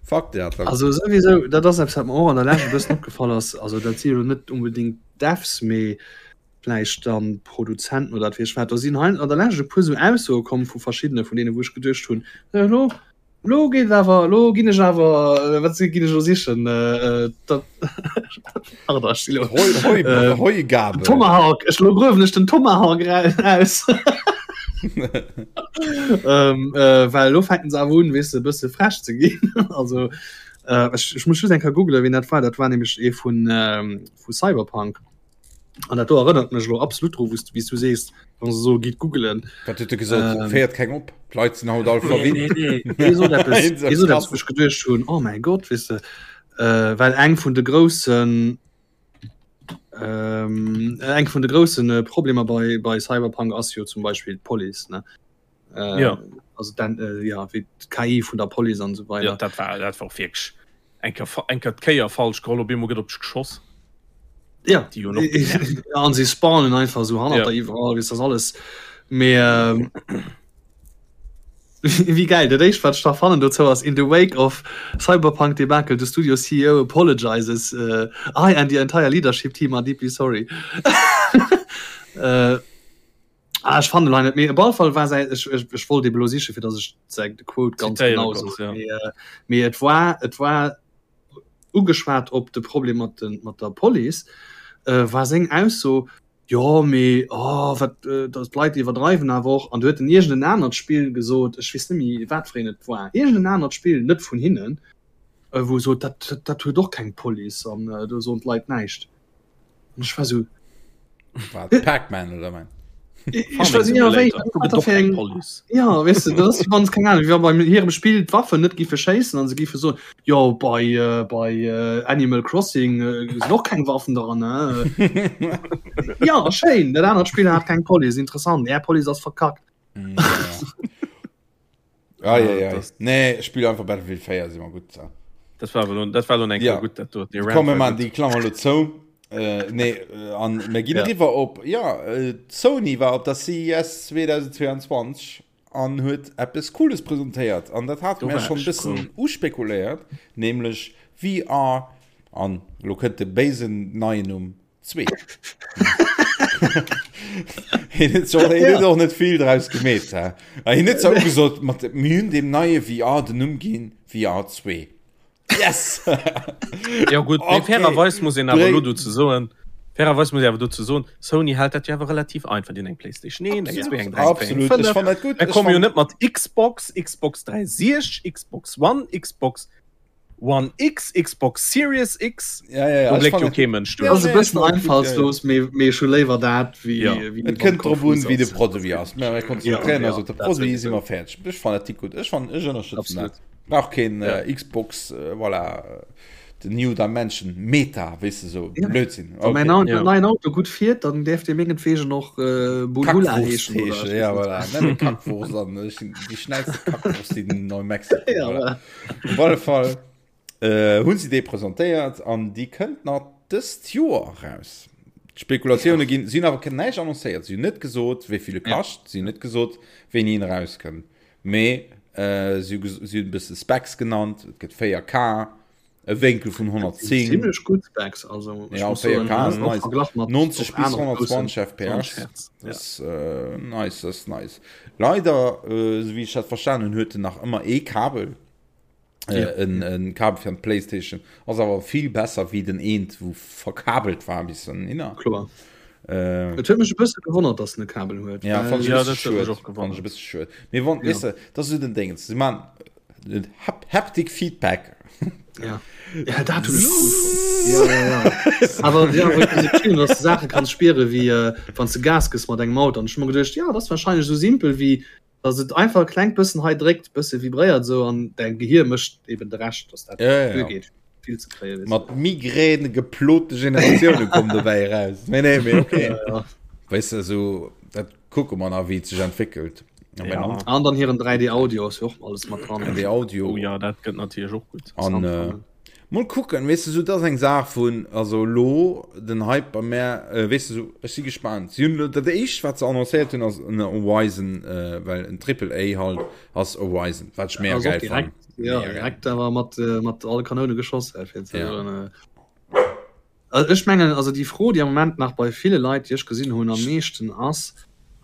Fuck dat. Also souwisou, dat ass eppes, wat mer och an der Lescht e bëssen opgefall ass. Also dat si jo net unbedingt Devs, mee vläicht dann Produzenten oder wat weess ech wat. Do sinn hei an der Lescht e puer sou Aussoe komm vu verschiddene vun deene wou ech geduecht hunn, elo elo geet et awer, elo ginn ech awer, wat ginn ech elo sichen, dat, pardon, ech si elo, Heu, Heu, Heugabel. Tomahawk, ech elo gruewen ech den Tomahawk aus. ähm, äh, well elo fänken se awer un, weess de, e bësse frech ze ginn. Also äh, ech, ech muss just eng Kéier googlen, wien dat war. Dat war nämlech ee vun, ähm, vu Cyberpunk. An dat do erënnert mech elo absolut dru, wous du, wéi s du sees, wann se soe gitt googelen. Wat huet e gesot? Ähm, Féiert keng op. D'Leit sinn haut all verwinnt. Nee, nee, nee. Hie sot eppes, hie sot eppes, wou ech geduecht hunn, oh mäi Gott, weess de, äh, well eng vun de groussen, ähm, eng vun de groussen äh, Problemer bei, bei Cyberpunk ass jo zum Beispill d'Police, ne? Äh, Ja. Also dann, äh, ja, wéi d'KI vun der Police an esou weider. Ja, dat war, dat war och wierklech eng Kéier, eng Kéier d'Kéier falsch geholl, op eemol gëtt op dech geschoss. Ja. Déi jo noch genervt. Ja, an si spawnen einfach so hannert Ja. der iwwerall, weess das alles. Mee ähm, wéi geil, dat éischt wat ech da fannen dozou ass, in the wake of Cyberpunk debacle, the studio CEO apologizes, uh, I and the entire leadership team are deeply sorry. äh,. Ah, ech fannen hei net méi. Op alle Fall war säi ech, ech, ech wollt ebe lo siche fir datt ech säi de Quote ganz Zitéiere genau konns, soen. ja. Mee, äh, mee et war et war ugeschwat op de Problem mat den mat der Police, äh, war seng Ausso, jo mee oh wat äh, datt d'Leit iwwerdreiwen awer och. An du huet en iergend en anert Spill gesot, ech weess net méi wat fir een et war, iergend en anert Spill, net vun hinnen, äh, wou e sot, dat dat huet och keng Police an äh, do soen d'Leit näischt. An ech war so Wat, Pac-Man oder mein? Ich weiß nicht, wéi, wat fir eng Ja weißt du, das wann keng Ahnung, wie beim hirem Spiel d'Waffen net giffe schéissen an se giffe so jo bei äh, bei äh, Animal Crossing äh, sinn och keng Waffen dran ne? ja schéin, dat anert Spiel hat keng Police, interessant, Är Police ass verkackt. Mm, ja. Ah, ja, ja. Nee, spiel einfach Battlefield 4 si mer gutt. So. Dat war lo, dat war lo eng ja. gutt dat dort. Komm mir man déi Klammer lo zou. Äh, nee, äh, an mir ginn ja. riwer op ja äh, Sony war op der CES 2022 an huet eppes Cooles presentéiert an dat hat mir schon bëssen uspekuléiert, nämlech VR an lo kënnt de béisen neien Numm Zwee. Hien huet zwar- hien huet och net vill draus gemeet. hä? A Hien huet zwar ugesot, mat mir hunn deem neie VR den Numm ginn, VR 2. Yes! Ja gut, mee Okay. fairerweis muss een awer Bréng- elo dozou soen, fairerweis muss een awer dozou soen, Sony hält dat jo awer relativ einfach, déi hunn eng PlayStation 1, eng 2, eng 3, eng 4, eng Absolut, 5. ech fann dat gutt. Mir Ech komme jo fann- net mat Xbox, Xbox 360, Xbox One, Xbox One X, Xbox Series X, Ja, ja, ja. do Ech bléckt fann jo dat- kee Mënsch Ja, duerch. Ass e nee, bëssen ech fann dat gutt, ja, ja. einfallslos, mee mee ech hu léiwer dat wéi Ja. wéi Et wann kënnt drop un, konfus wéi de ass. Produit ass. Mä mir konzentréieren Ja, eis op de ja, dat Produit, si sowieso. mer fäerdeg. Ech fannen dat gutt. Ech fannen, ech ënnerstëtzen Absolut. dat. Brauch keen Ja. äh, Xbox, äh, voilà, äh, the new dimension, Meta, weess de sou, Ja. Blödsinn. Wann mäin Okay. Au Ja. neien Auto gutt fiert, dann däerf dee mengetwegen och äh, Bulhula Kackwurst heeschen oder heeschen, ech ja, weess net. voilà. Nenn e Kackwurst an ech sinn déi schnellste Kackwurst in Neu-Mexiko. Ja, Voilà. voilà. Op alle Fall äh, hunn si déi presentéiert an déi kënnt nach dëst Joer eraus. D'Spekulatioune ginn, si hunn awer näischt annoncéiert. Si hunn net gesot, wéi vill e kascht, si hunn net gesot, wéini en erauskënnt. Mee äh, si hu si hunn e bësse Specs genannt, et gëtt 4K, e Wénkel vun 110. Zimmlech gutt Specs, also ech Ja, muss 4K soen, ass och nice. Verglach mat 90 och bis anere groussen 120 FPS. 20 Hertz. Dat ass äh, nice, dat ass nice. Leider, äh, esou wéi ech dat verstanen hunn, huet en nach ëmmer ee Kabel. Äh, Ja. en, en Kabel fir an d'Playstation. Ass awer vill besser wéi den eent, wou verkabelt war bis hinner. Kloer. Äh, Et huet mech e bësse gewonnert, dass en e Kabel huet. ja, well- fand ich Ja, e bësse dat huet mech schued. och Fand ich gewonnert. e bësse schued. Mee wann, Ja. weess de, dat ass esou den Déngens. Si man den Hap Haptic Feedback. Ja. Ja, dat hunn ech cool fonnt. Ja, ja, ja. Awer ja, wou ich gesinn, dass du Saache kanns spiere wéi äh, wann du Gas gëss mat engem Auto. An ech hu mer geduecht, ja, dat ass wahrscheinlech esou simpel wéi dass et einfach e klengt bëssen hei dréckt, bësse vibréiert esou an däin Gehir mécht eben de Rescht, dass dat Ja, ja, ja. duergeet vill ze kréien. weess du. Mat Migräne geplote Generatioune kommen dobäi eraus. Nee, nee, mee okay. Ja, ja. Weess de, esou, dat kucke mer nach, wéi et sech entwéckelt. Am Ja. Ende. An dann hiren 3D Audio ass jo och alles mat dran. 3D Audio. Oh ja, dat gëtt natierlech och gutt. An äh, mol kucken, weess de, sou, dat ass eng Saach vun, also lo den Hype bei mär, äh, weess de, sou, ech si gespaant. Si hunn dat éischt, wat se annoncéiert hunn, ass en Horizon, äh, well en Triple A halt ass Horizon, wat ech mega Ass och geil direkt, fannen. ja, Mega geil. direkt awer mat, äh, mat alle Kanoune geschoss, äh, fir ze Ja. soen, äh, Also ech mengen, also déi Fro, déi am Moment nach bei ville Leit, déi ech gesinn hunn, am meeschten ass,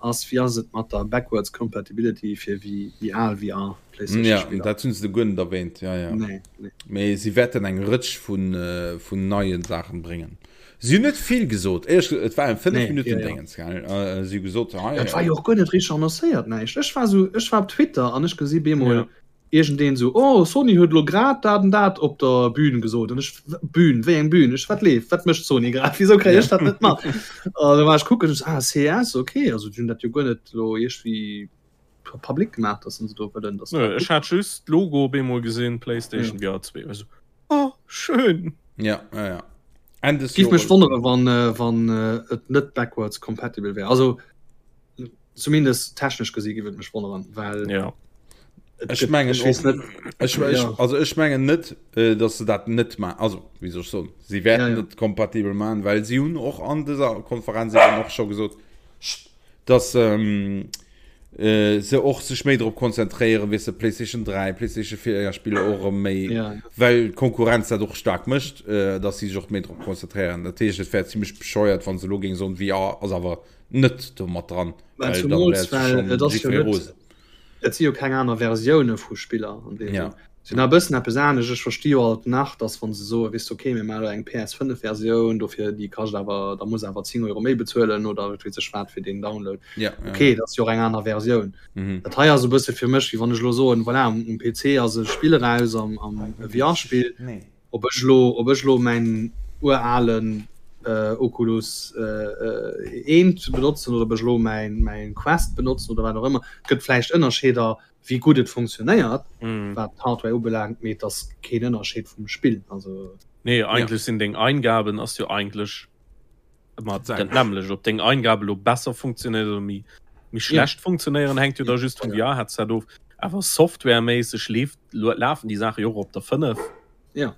ass, wéi ass et mat der backwards compatibility fir déi déi al VR Mm, Ja, PlayStation-Spiller? dat hunn se guer net erwähnt. Ja, ja. Nee, nee. Mee si wäerten eng Rëtsch vun, äh, vun neien Saachen bréngen. Si hunn net vill gesot. Éierlech gesot, et war en 5 Nee, Minutten ja, ja. Déngens, gell? Äh, si hu gesot, hei, Dat war jo och guer net richteg annoncéiert, näischt. Ech war sou, ech war op Twitter an ech gesi bemol Ja. iergendeen sou, oh Sony huet elo grad dat an dat op der Bühn gesot. An ech, Bühn, wéi eng Bühn? Ech, wat leeft? Wat mécht Sony grad? Wisou kréien ech dat net mat? An da war ech kucken, ech, ah CES, okay, also déi hunn dat jo guer net elo iergendwéi public gemaach, dass se do wëllen, dass Nö, ech hat just d'Logo op eemol gesinn, PlayStation VR 2. Ech sou, oh, schön! Ja, ja, ja. Enn des Giff mech Jores. wonnere wann wann et net backwards compatible wär. Also zumindest technesch gesi giff et mech wonneren, well Ja. et Ech gëtt, mengen ech weess och, net, ech, ech, ja. also ech mengen net, äh, dass se dat net ma also wéi soll ech soen, si Ja, wäerten ja. et kompatibel maachen, well si hunn och an dëser Konferenz eben och scho gesot, dass ähm, äh, se och sech méi drop konzentréieren, weess de, PlayStation 3, PlayStation 4 Spiller och erëm méi, Ja. well d'Konkurrenz dat och staark mécht, äh, dass si sech och méi drop konzentréieren. Dat heescht, et wär zimmlech bescheuert, wann se elo géing soen, VR ass awer net do mat dran, Well well dann zumools, wär well schonn et ass jo jiddweree net, rosen. et si jo keng aner Versioune vu Spiller an deem Ja. Sënn. Si hunn e bëssen eppes anescht. Ech versti jo alt nach, dass wa se soen, weess de, okay, mir maache elo eng PS5-Versioun, dofir déi kascht awer, da muss awer 10 Euro méi bezuelen oder wat weess ech wat fir deen Download. Ja, ja, Okay, ja. dat ass jo och eng aner Versioun. Mhm. Dat hei ass e bësse fir mech, wéi wann ech elo soen, voilà, um um PC ass e Spill eraus, am am e VR-Spill, ob ech elo, ob ech elo mäin uralen Oculus eent benotzen oder ob ech elo mäin mäin Quest benotzen oder wat och ëmmer. Et gëtt vläicht Ënnerscheeder, wéi gutt et funktionéiert, wat d'Hardware ubelaangt, mee et ass keen Ënnerscheed vum Spill. Also. Nee, eigentlech sinn deng Eingaben ass jo eigentlech ëmmer dat nämmlecht. Ob deng Eingabe lo besser funktionéiert oder méi méi schlecht funktionéieren, hänkt jo da just vum VR-Headset of. Awer softwareméisseg leeft lafen déi Saache jo och op der 5. Ja.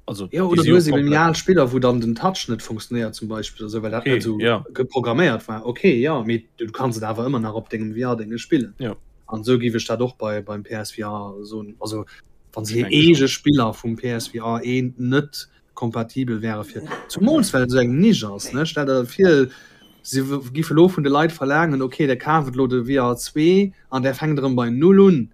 Also, ja, oder du hues eben al Spiller, wou dann den Touch net funktionéiert zum Beispill oder sou, well dat okay, net sou ja. geprogramméiert war. Okay, ja, mee du kanns et awer ëmmer nach op dengem VR-Dénge spillen. Ja. An sou géif ech dat och bei beim PSVR soen. Also wann se Ech hir denke schon. eege Spiller vum PSVR 1 net kompatibel wäre fir zumools well et esou eng Nisch ass, ne? Stell der vir, se géife lo vun de Leit verlaangen, okay, der kaaft elo de VR 2 an der fänkt erëm bei null un.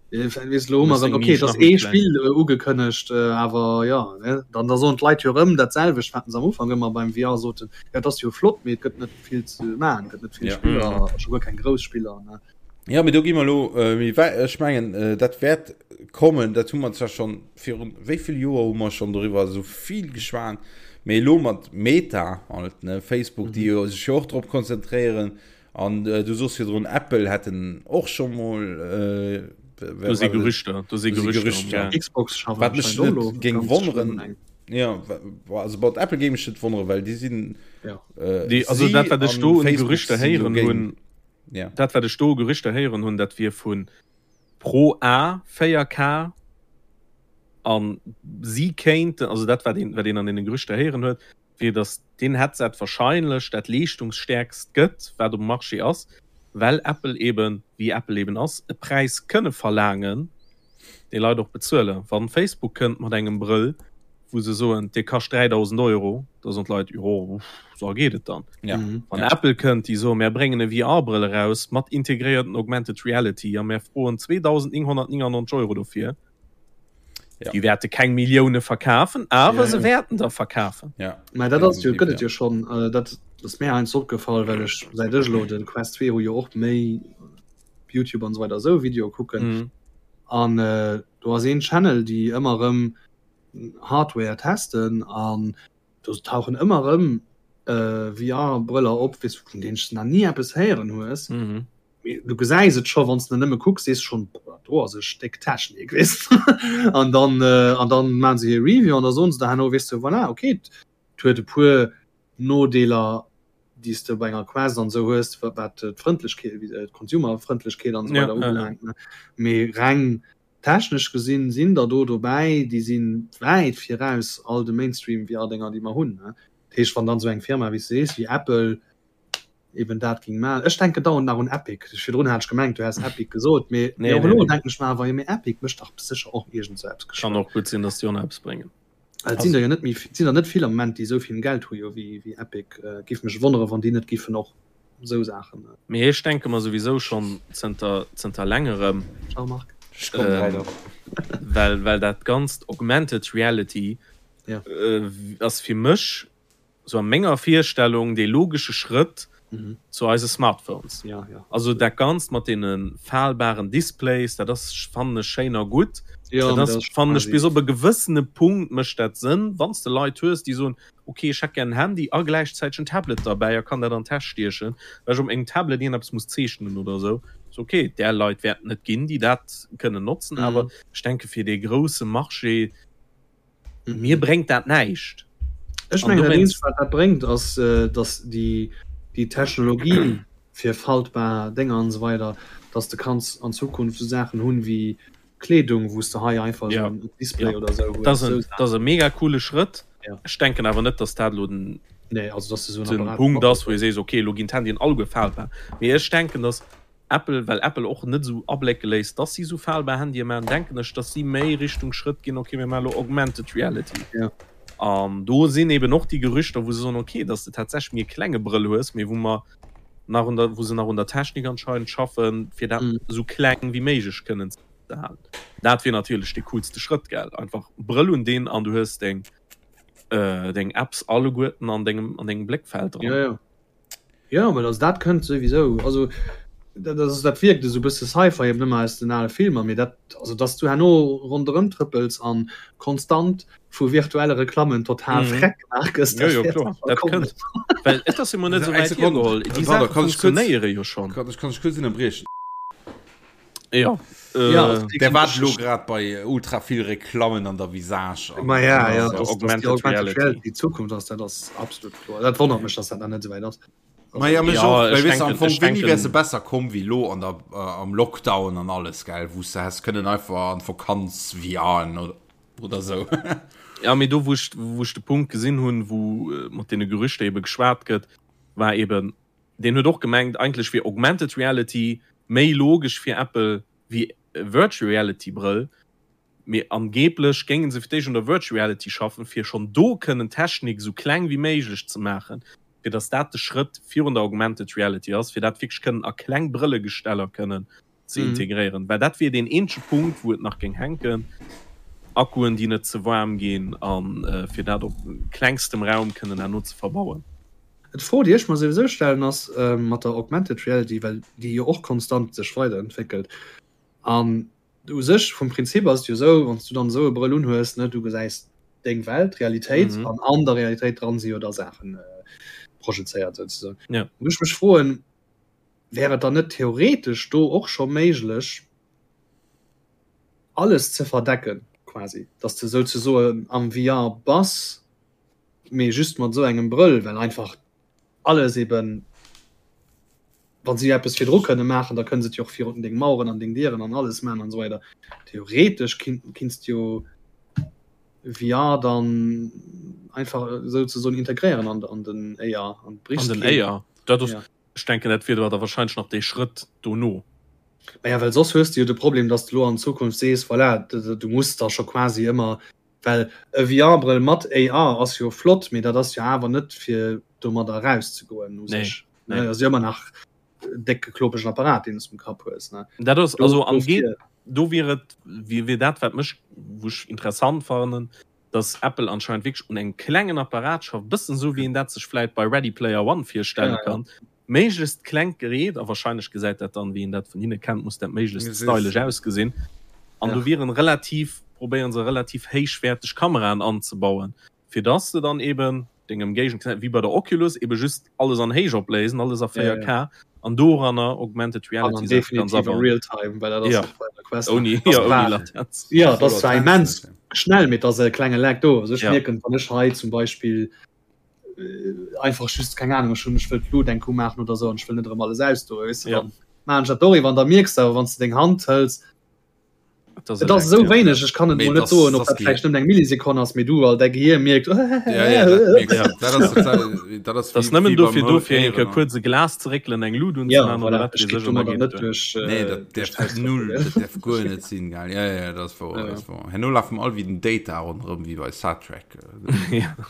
Weess lo hu mer erëm, okay, et ass ee Spill ugekënnegt, awer jo, ne, dann da soen d'Leit jo erëm dat selwecht, wat se am Ufank ëmmer beim VR soten, jo, et ass jo flott, mee et gëtt net vill ze maachen, et gëtt net vill Spiller, a scho guer keng grouss Spiller, ne. Jo, mee do gi mer elo méi wäit. Ech mengen, dat wäert kommen, dat hu mer zwar schonn virun wéi vill Joer hu mer schonn doriwwer esou vill geschwat, mee elo mat Meta halt, ne, Facebook, déi jo sech jo och drop konzentréieren, An du sos virdrun Apple hätten och scho mol Do si Gerüchter, do si Gerüchter. Xbox schafft Wat mech anscheinend och net elo géing ganz schlëmm wonneren, eng. ja, also bei Apple géing mech net wonneren, well déi sinn Ja. Déi, also si dat wat ech an do un Facebook Gerüchter sinn héieren dogéint. hunn, Ja. dat wat ech do u Gerüchter héieren hunn, dat wier vu Pro A 4K an si kéinten, also dat wat een, wat een an deene Gerüchter héieren huet, wier dass deen Headset wahrscheinlech dat leeschtungsstäerkst gëtt, wat um Marché ass, well Apple eben, wéi Apple eben ass, e Präis kënne verlaangen, dee Leit och bezuelen. Wann Facebook kënnt mat engem Brëll, wou se soen, dee kascht 3.000 Euro, da soen d'Leit, jo, sou geet et dann. Wann Apple kënnt, déi soen, mär bréngen e VR-Brëll eraus mat integréierten Augmented Reality a mär froen 2.999 Euro dofir, Ja. Déi wäerte keng Millioune verkafen, awer Ja, se ja. wäerten der verkafen. Ja. Mä dat ass jo, Definitiv, gëtt et ja. jo schonn. Äh, dat ass mir heiansdo opgefall, well ech säit ech elo de Quest 2 hu jo och méi YouTube an esou weider esou Videoe kucken. Mhm. An äh, do ass een Channel, déi ëmmer erëm Hardware testen an do tauchen ëmmer erëm äh, VR-Brëller op, weess, vun deenen s de nach ni eppes héieren hues. Mhm. Du gesäis et scho wann s de nëmme kucks, sees schonn, boah, do ass e Stéck Technik, weess de. An dann, an dann maache se hir Review an da soen se der herno, weess de, voilà, okay, et huet e puer Nodeeler, déi s de bei enger Quest an esou hues, wat d'Frëndlechkeet, d'Consumerfrëndlechkeet an esou weider ubelaangt, ne. Mee reng technesch gesinn sinn der do dobäi, déi si wäit viraus all de Mainstream-VR-Dénger, déi mer hunn, ne. Dat heescht, wann dann esou eng Firma, wéi s de sees, wéi Apple, eben dat ging man. Ech denken dauernd nach un Epic. Virdrun hat ech gemengt, du häss Epic gesot, mee Nee, och nee, elo nee. denken ech mer awer, jo mee Epic mécht dach sécher och iergend sou eppes Kann geschwënn. och gutt sinn, dass déi och nach eppes bréngen. Well et sinn der jo net méi, et sinn der net vill am Moment, déi esou vill Geld hu jo wéi, wéi Epic. Giff mech wonnere wann déi net giffen och esou Saachen. Mee ech denke mer souwisou schonn zënter, zënter längerem, Ciao Marc. Ech kommen ähm, grad och. well, well dat ganzt Augmented Reality Ja. äh, ass fir mech sou a menger Virstellung, dee logesche Schrëtt zu eise Smartphones. Ja, ja. Also dat Ganzt mat deene falbaren Displays, dat ass, fannen ech, schéin a gutt. Ja, Dat mee ass, dat ass fannen ech, quasi. bis op e gewëssene Punkt mécht dat Sënn, wann s de Leit hues, déi soen, ok, ech hätt gär en Handy a gläichzäiteg en Tablet derbäi a kann dat an d'Täsch stiechen, well ech op mengem Tablet iergendeppes muss zeechnen oder esou. Ass ok, där Leit wäerten et ginn, déi dat kënnen notzen, awer ech denke fir dee grousse Marché, Mir bréngt dat näischt. Ech mengen dat eenzegt wat dat bréngt ass datt déi déi Technologie fir faltbar Dénger an esou weider, datt de kanns an Zukunft esou Saachen hunn wéi Kleedung wou s de hei einfach esou en Display oder esou hues. Dat ass e mega coole Schrëtt. Ech denken awer net, datt dat elo den Nee, also datt de esou en Punkt ass wou ee sees, okay elo ginn d'Handyen alleguer faltbar. Mee ech denken, datt. Apple, well Apple och net esou ablécke léisst, dass si esou falbar Handye maachen, denken ech, dass si méi Richtung Schrëtt ginn, okay, mir maache lo Augmented Reality. Ja. An do sinn eben och déi Gerüchter, wou se soen, okay, dass de tatsächlech méi e klenge Brëll hues, mee wou mer nach un der, wou se nach un der Technik anscheinend schaffen, fir dat esou kleng wéi méiglech kënnen ze halen. Dat wier natierlech dee coolste Schrëtt, gell? Einfach Brëll un deen an du hues deng, deng Apps alleguerten an dengem, an dengem Bléckfeld dran. Ja, ja. Ja, well also dat kënnt souwisou. Also dat ass dat wierkt esou bësse Sci-Fi eben ëmmer aus den ale Filmer, mee dat also dass du herno ronderëm trëppels an konstant vu virtuelle Reklammen total mhm. freck gemaach gëss. Jo, jo, kloer. Dat kënnt. Well et ass jo mol net esou wäit hiergeholl. Déi Saache funktionéiere jo schonn. Kann ech kann ech kuerz ënnerbriechen? Ja. Äh, ja, der war lo grad bei ultra vill Reklammen an der Visage. Ma ja, ja, das, Augmented, das Augmented Reality. Die Zukunft ass dat ass absolut kloer. Dat wonnert mech, dass dat nach net esou wäit ass. Ma ja, mech ja, och, ich well, am denken, Fong, ich wéini denken, wär se besser komm wéi lo an der, äh, am Lockdown an alles, gell, wou s de häss kënnen einfach an d'Vakanz VRen oder, oder sou. Ja, mee do wou ech, wou ech de Punkt gesinn hunn, wou äh, mat deene Gerüchter ebe geschwat gëtt, war eben, deen huet och gemengt, eigentlech wier Augmented Reality méi logesch fir Apple wéi Virtual Reality Brëll, mee angeblech géinge se fir d'éischt un der Virtual Reality schaffen, fir schonn do kënnen d'Technik esou kleng wéi méiglech ze maachen, fir datt dat de Schrëtt virun der Augmented Reality ass, fir dat wierklech kënnen a kleng Brëllegesteller kënnen ze integréieren, well dat wier deen eenzege Punkt, wou et nach géing hänken, Akkuen, déi net ze waarm ginn, a fir dat op klengstem Raum kënnen herno ze verbauen. D'Fro, déi ech mer souwisou stellen, ass mat der Augmented Reality, well déi jo och konstant sech weiderentwéckelt. An u sech vum Prinzip ass et jo esou, wann s du dann esou e Brëll unhues, ne, du gesäis deng Welt, d'Realitéit, an an der Realitéit dran si jo da Saachen projezéiert souzesoen. Wou ech mech froen, Wär et dann net theoretesch do och scho méiglech, alles ze verdecken quasi, dass de souzesoen am VR bass, mee just mat esou engem Brëll, well einfach alles eben, wa si eppes virdru kënne maachen, da kënne se et jo och virun deng Maueren an deng Dieren an alles maachen an esou weider. Theoretesch kinns de jo VR dann einfach souzesoen integréieren an den AR an den AR. Dat ass Ech denken, dat wier da wahrscheinlech nach dee Schrëtt dono. Maja, well soss hues de jo de Problem, dass de lo an Zukunft sees, voilà, du muss da scho quasi ëmmer, well e VR-Brëll mat AR ass jo flott, mee dat ass jo awer net fir domadder erauszegoen u sech. Nee, nee. Ass jo ëmmer nach e décke klopegen Apparat, deen s de um Kapp hues, ne? Dat ass, also am Dofir. Do wier et, wier dat, wat mech, wou ech interessant fannen, dass Apple anscheinend wierklech un engem klengen Apparat schafft, bëssen esou wéi een dat sech vläit bei Ready Player One virstelle kann, méiglechst klengt Gerät, a wahrscheinlech gesäit dat dann, wéi een dat vun hinne kennt, muss dat méiglechst stylesch ausgesinn, an do wieren relativ, probéieren se relativ héichwäerteg Kameraen anzebauen, fir dass de dann eben deng Ëmgéigend gesäis, wéi bei der Oculus, ebe just alles an héich opléisen, alles a 4K, an doranner Augmented Reality Saache ganz abauen. Real Time, well dat ass ja. bei der Quest. Ouni, ja, ouni Latenz. Ja, dat ass zwar immens schnell, mee et ass e klenge Lag do. Also ech ja. mierken, wann ech hei zum Beispill äh, einfach just, keng Ahnung, ech hunn, ech wëll d'Lut eng Coup maachen oder sou an ech wëll net erëm alles ausdoen, weess de, ja. dann maachen ech dat doriwwer an da mierks de awer, wann s de deng Hand hëls, Et Et ass esou wéineg, ech kann et mol net soen, ob dat vläicht nëmmen eng Millisekonn ass, mee du all däi Gehier mierkt, Dat ass nëmmen dofir do fir eng Kéier kuerz e Glas ze réckelen, eng Lut unzemaachen oder wat weess ech, an da geet et duer. Nee, dat däerf null, dat däerf guer net sinn, gell. Ja, ja, dat ass wouer, dat ass wouer. Herno lafe mer all wéi den Data ronderëm, wéi bei Star Trek.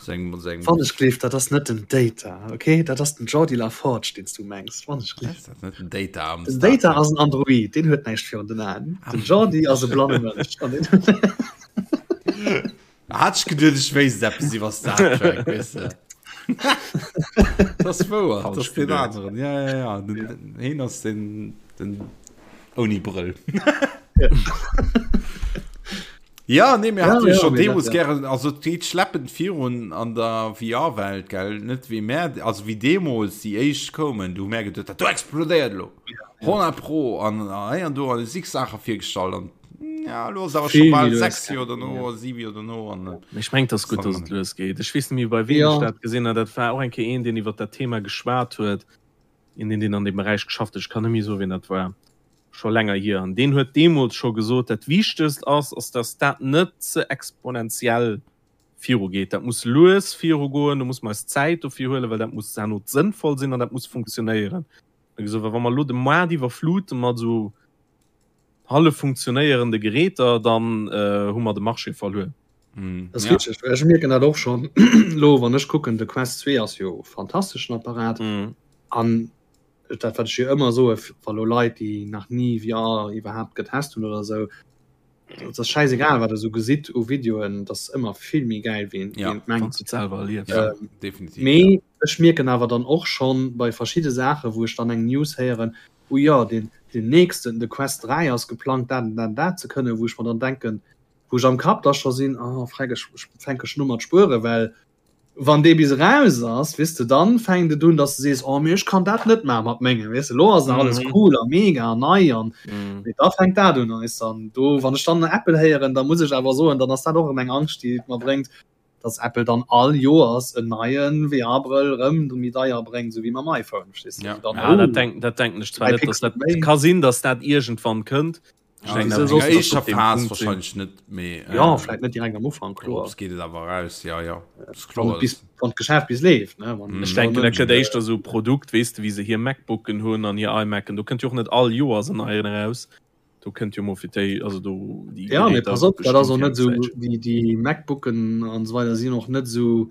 Wann ech gleef, dat ass net den Data, okay? Dat ass den Geordi La Forge, deen s du mengs. Wann ech gleef. Ass dat net den Data am Den Data ass en Android, deen huet näischt virun den Aen. Den Geordi ass e blanne Mënsch. An deen Hat ech geduet, ech wéisst eppes iwwer Star Trek, weess de. Dat ass wouer, dat ass deen aneren. Ja, ja, ja. Den, den, heen ass den, den ouni Brëll. Ja, nee, mir Ja, haten jo ja, schon mee dat, deemools ja. gären, also et geet schleppend virun an der VR-Welt, gell, net wéi mär, also wéi deemools déi éischt koumen, du hu mär geduet, dat do explodéiert elo, 100 pro, an hei an do an zig Saache virgestallt an ja, elo ass awer scho Vill méi bal lues 6 Joer gaangen, dono, ja. 7 Joer dono an Mee ech mengen, et ass gutt, dass et lues geet. Ech weess net méi, bei weem Ja. ech dat gesinn hat. Dat war och eng Kéier een, deen iwwer dat Thema geschwat huet, een, deen an deem Beräich geschafft huet. Ech kann net méi soen, wien dat war. Scho länger hier. An deen huet deemools scho gesot, dat Wichtegst ass, ass dass dat net ze exponentiell virugeet. Dat muss lues virugoen, do muss mer eis Zäit dofir huelen, well dat muss herno sënnvoll sinn an dat muss funktionéieren. Gesot, wa mer elo de Moart iwwerflute mat esou hallef funktionéierende Geräter, dann hu mer de Marché verluer. Mm, das ja. richtig. Ech mierken dat och schon lo wann ech kucken de Quest 2 ass jo fantasteschen Apparat mm. an dat wat ech jo ëmmer so wa lo Leit déi nach nie VR iwwerhaapt getest hunn oder sou dat ass scheißegal wat der so gesitt u Videoen dat ass ëmmer vill méi geil wéi ja, mengt selber erlieft ja, ähm, definitiv mee ja. ech mierken awer dann och schon bei verschiedene Sache wou ech dann eng News héieren oh ja den den nächsten de Quest 3 ass geplangt dat dat dat ze kënnen wou ech mer dann denken wou ech am Kapp da scho sinn, oh freck, ech fänke schon u mat spueren, well wann dee bis eraus ass, weess de, dann fänkt et un, dass de sees, oh mee ech kann dat net maache mat mengem, weess de, elo ass nach alles cool a mega an nei an mee da fänkt dat un, weess de, an do, wann ech dann Apple héieren, da muss ech awer soen, dann ass dat och erëm eng Angscht, déi et mer bréngt, dass Apple dann all Joers en neie VR-Brëll erëm méi deier bréngt, esou wéi mam iPhone, verstees de, Ja, dann, ja, dat denk, dat denken ech zwar net, dass dat, ka sinn, dass dat iergendwann kënnt, Ja, also in der éischter Phas wahrscheinlich net méi äh, ja vielleicht net direkt am Ufank kloer geht et awer raus ja ja kloer bis wann d'Geschäft bis leeft ne wann mm. Ech denken dat gëtt éischter sou Produkt weess de wéi se hir MacBooken hunn an hir iMacen do kënnt jo och net all Joers en neien eraus do kënnt jo mol fir déi also do déi ja mee pass op dat ass och net sou déi déi MacBooken an esou weider sinn och net sou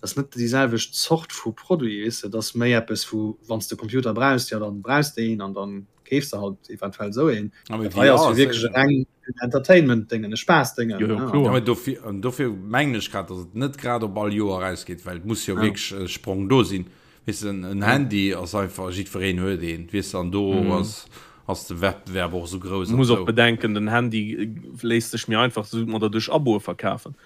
ass net déi selwecht Zort vu Produit, weess de, et ass méi eppes wou wann s de Computer brauchs, jo dann brauchs de een an dann keefs de halt eventuell esou een. Dat hei ass jo wierklech e reng Entertainment-Déngen, e Spaass-Déngen. Jo, jo, kloer. Ja, mee dofir, an dofir mengen ech grad, datt et net grad op all Joer erausgeet, well et muss jo wierklech e Sprong do sinn. Weess de, en Handy ass einfach, jiddwereen huet een, weess de, an do ass, ass de Wettbewerb och esou grouss. Muss och bedenken, den Handy léisst sech méi einfach esou mat der duerch Aboe verkafen.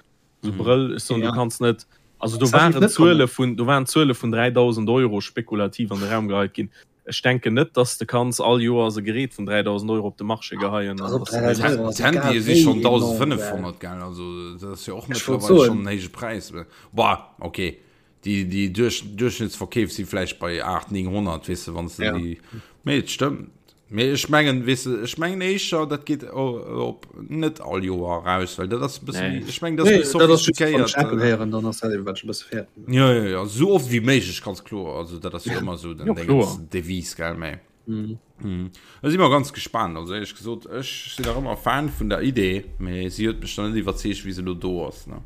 So mhm. Brëll ech soen, ja. du kannst net also do waren Zuele vun do waren Zuele vun 3000 Euro spekulativ an de Raum geheit ginn. Ech denken net, dass de kanns all Joer se Gerät vun 3000 Euro op de Marché geheien. Handy si schon 1500 gell also dat ass jo och mittlerweile schon en héije Präis. Boah, okay. Déi, déi Duerch, Duerchschnittsverkeef si vläicht bei 8, 900, weess de, wann s de ja. déi. Mee et stëmmt. Mee ech mengen, weess de, ech mengen éischer, dat geet op net all Joer eraus, well dat ass e bësse méi, ech mengen, dat ass méi sophistiquéiert. Apple héieren, dann ass dat eben, wat ech e bësse fäerten. Ja, ja, ja, esou oft wéi méiglech, ganz kloer. Also dat ass jo ëmmer esou den Dingens, Devise, gell, mee. Mhm. Mhm. Da si mer ganz gespaant. Also éierlech gesot, ech sinn nach ëmmer Fan vun der Idee, mee si huet mech nach net iwwerzeegt, wéi se elo do ass, ne.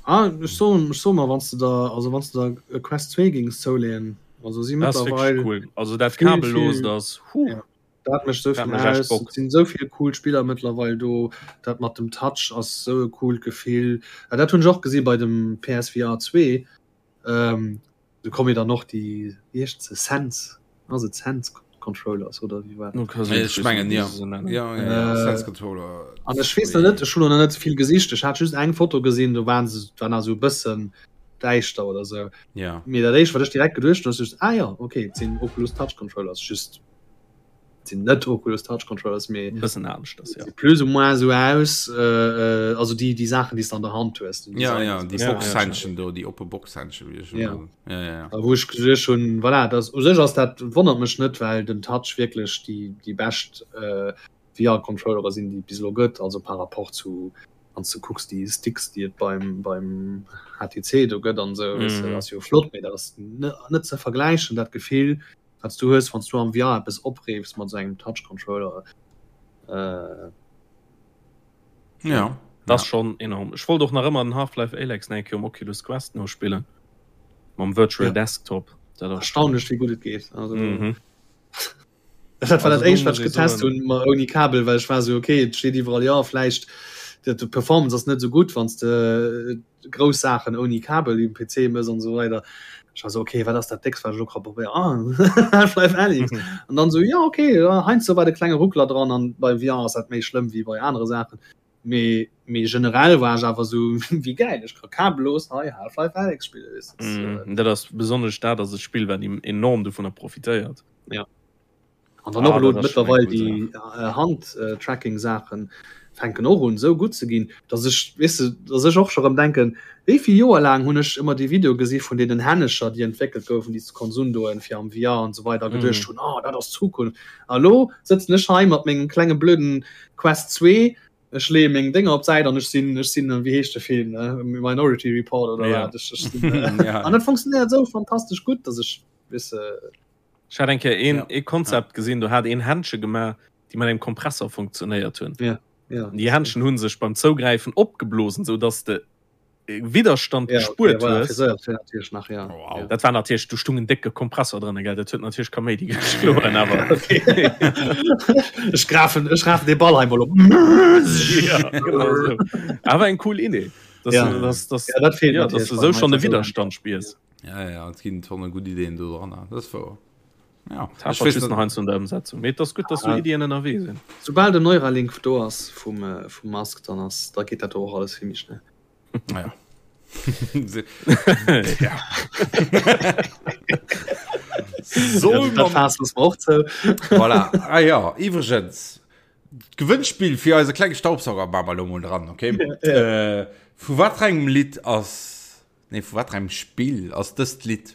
Ah, ech soen, ech soe mer, wann s de der, also wann s de der e Quest 2 géings zouleeën, also si Dat ass wierklech mëttlerweil cool. Also dat vill, kabellost vill, ass, huh, ja, dat mécht esou dat vill mécht echt aus. Et Bock. sinn esou vill cool Spiller mëttlerweil do. Dat mat dem Touch ass esou e coolt Gefill. Ah, dat hunn ech och gesi bei dem PSVR 2. Ähm, Do komme jo dann och déi, wéi heescht se, Sense, ass et Sense Controllers oder wéi war dat? Ech mengen ja. Ja, ja, ja. Sense Controller. An ech weess nach net, ech hunn och nach net vill gesicht, ech hat just eng Foto gesinn, do waren se, war nach esou e bëssen däischter oder sou. Ja. Mee dat éischt wat ech direkt geduecht hunn, ass just, ah jo, okay, et sinn Oculus Touch Controllers, just sinn net Oculus Touch Controllers mee bëssen aneschters ja. plus ou moins sou aus äh, äh, also déi déi Saachen déi s de an der Hand hues den Ja, ja, déi ja, Boxhändchen do, déi oppe Boxhändchen wéi ech ja. Ja, ja, ja. Wou ech geduecht hunn voilà, das u sech ass dat wonnert mech net, well den Touch wierklech déi déi bescht äh, VR-Controllere sinn déi et bis elo gëtt, also par rapport zu wann s du kucks déi Sticks déi et beim beim HTC do gëtt an sou, mm. weißt du, ass jo flott, mee dat ass net ze vergläichen dat Gefill Wat s du hues, wann s du am VR eppes opreefs mat esou engem Touch Controller. Äh, ja. Das ja. schon enorm. Ech wollt och nach ëmmer den Half-Life Alyx nach eng Kéier um Oculus Quest nospillen. Mam Virtual ja. Desktop. Dat ass erstaunlech wéi gutt et geet. Also, mhm. Dat war dat éischt wat ech getest hunn ma ouni Kabel, well ech war sou okay, et steet iwwerall ja vläicht de Performance ass net sou gutt, wann s de grouss Saachen ouni Kabel um PC mëss an esou weider. Ech war sou okay, wat ass dat déckst wat ech elo ka probéieren? Ah Half-Life Alyx. An dann sou ja okay, ja, heiansdo war de klenge Ruckler dran an bei VR ass dat méi schlëmm wéi bei anere Saachen. Mee mee generell war ech awer sou wéi gäil, ech ka kabellos hei Half-Life Alyx spillen, weess de. Mm, dat ass besonnesch dat ass e Spill wat enorm dovunner profitéiert. Ja. An dann och elo mëttlerweil déi Hand-Tracking-Saachen fänken och un esou gutt ze ginn, datt ech, weess de, datt ech och scho rëm denken, wéi vill Joer laang hunn ech ëmmer déi Videoe gesi vun deenen Hännecher, déi entwéckelt goufen, déi s de konns undoen fir am VR an esou weider, a geduecht hunn, oh dat ass d'Zukunft. A elo sëtzen ech hei mat mengem klenge blöden Quest 2, ech leeë meng Dénger op d'Säit an ech sinn, ech sinn, wéi heescht de Film, Minority Report oder wat, ech sinn, an dat funktionéiert esou fantastesch gutt, datt ech, weess de. Ech hat eng Kéier een, ja. ee Konzept gesinn, do hat een Händche gemaach, déi mat engem Kompressor funktionéiert hunn. Ja. Ja. Déi Händchen hunn sech beim Zougräifen opgeblosen, sou dass de Widderstand ja, gespuert okay, hues. Voilà, natierlech nach, ja. Oh, wow. Dat war natierlech, do stung en décke Kompressor dran, gell? Dat huet natierlech Kaméidi geschloen, awer. Okay. ech grafen, ech rafen de Ball einmal op. ja, genau so. Awer eng cool Idee. Dass, ja. du, dass, dass, ja, dat fehlt ja, dass du sou schon de Widerstand spiers. Ja, ja, et ginn Tonne gutt Ideen do dran. Dat ass wouer. Ja. Ech weess just nach eins un der Ëmsetzung. Mee et ass gutt, dass sou Iddien ënnerwee sinn. Soubal den Neuralink do ass vum, äh, vum Musk, dann ass, da geet dat do och alles vill méi schnell. Naja. ja. Soll ja, dat Faass loosse mer och zou. Voilà. Ah ja, iwwregens, d'Gewënnspill fir eise klenge Staubsauger maache mer elo mol dran, okay? Ja, ja. Äh, vu wat fir engem Lidd ass Nee, vu wat engem Spill ass dëst Lidd?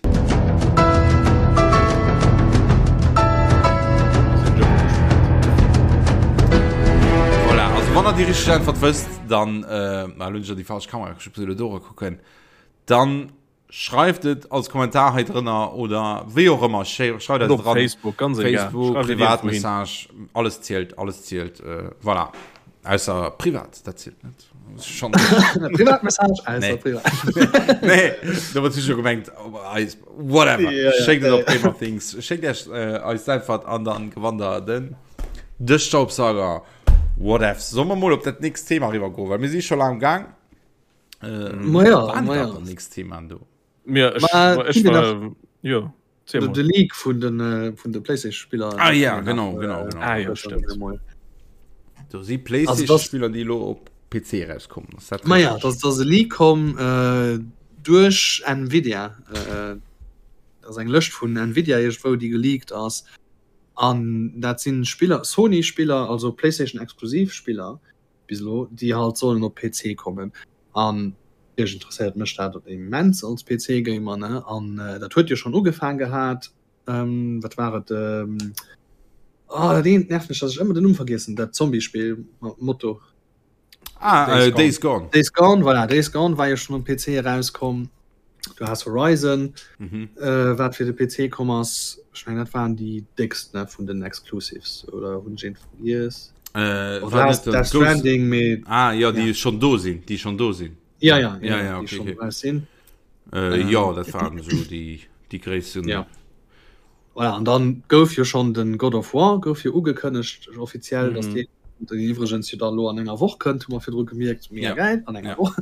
Voilà, also wann der déi richteg Äntwert wësst, dann, äh, ah, lo hunn ech jo déi falsch Kamera, ech muss elo do kucken, dann schreift et als Kommentar hei drënner oder wéi och ëmmer, schreift eis Op dran. Facebook, ganz egal. Facebook, Schreift et iergendwou hin. Privatmessage, alles zielt, alles zielt, äh, voilà. Ausser privat, dat zielt net. Schon. Privatmessage, ausser Nee. privat. Nee, da wird sicher gemengt, oh, eis, whatever. Ja, ja, Schéckt et ja, op Gamer Things. Schéckt Iech äh, eis d'Äntwert an dann gewannt der den de Staubsauger. Whatevs. Sollen wir mol op dat nächst Thema riwwer goen, well mir si scho laang am Gang. Äh, Ma ja, war ma dat ja. dat nächst Thema do? Ja, ech, Ma, ech ginn wir war, jo, erzähl De, mol. de Leak vun den, äh, vun de PlayStation-Spiller. Ah ja, genau, genau, genau. Ah ja, stimmt. Mol. Do si Also das- PlayStation-Spiller, déi elo op PC rauskommen. Ass dat Ma ja, richtig? dass dass e Leak komm äh, duerch Nvidia. Äh, dat ass eng Lëscht vun Nvidia iergendwou, déi geleakt ass. An dat sinn Spiller, Sony-Spiller, also PlayStation-exklusiv Spiller bis elo, déi halt sollen op PC kommen. An natierlech interesséiert mech dat immens als PC-Gamer, ne? An äh, dat huet jo schonn ugefaang gehat, ähm, wat war et, ähm, oh, dat eent nervt mech, dass ech ëmmer den Numm vergiessen, dat Zombie-Spill mat Moto. Ah, Days äh, Gone. Days Gone. Days Gone, voilà, Days Gone war jo schon um PC erauskomm. Du has Horizon, Mhm. äh, wat fir de PC komm ass. Ech meng, dat waren déi déckst ne, vun den Exclusives, oder hunn ech eent vergiess? Äh, Oder war has net den Death Ghost Stranding, mee Ah, ja, déi ja. schon do sinn, déi schon do sinn. Ja, ja, Ja, ja, ja, déi okay, schon okay. raus sinn. Äh, Ähm, ja, dat waren so déi, déi gréissten. Ja. Voilà, an dann gouf jo schon den God of War gouf jo ugekënnegt offiziell, dass Mhm. deen den iwwregens jo da lo an enger Woch kënnt, hu mer virdru gemierkt, mega Ja. geil, an enger Ja. Woch.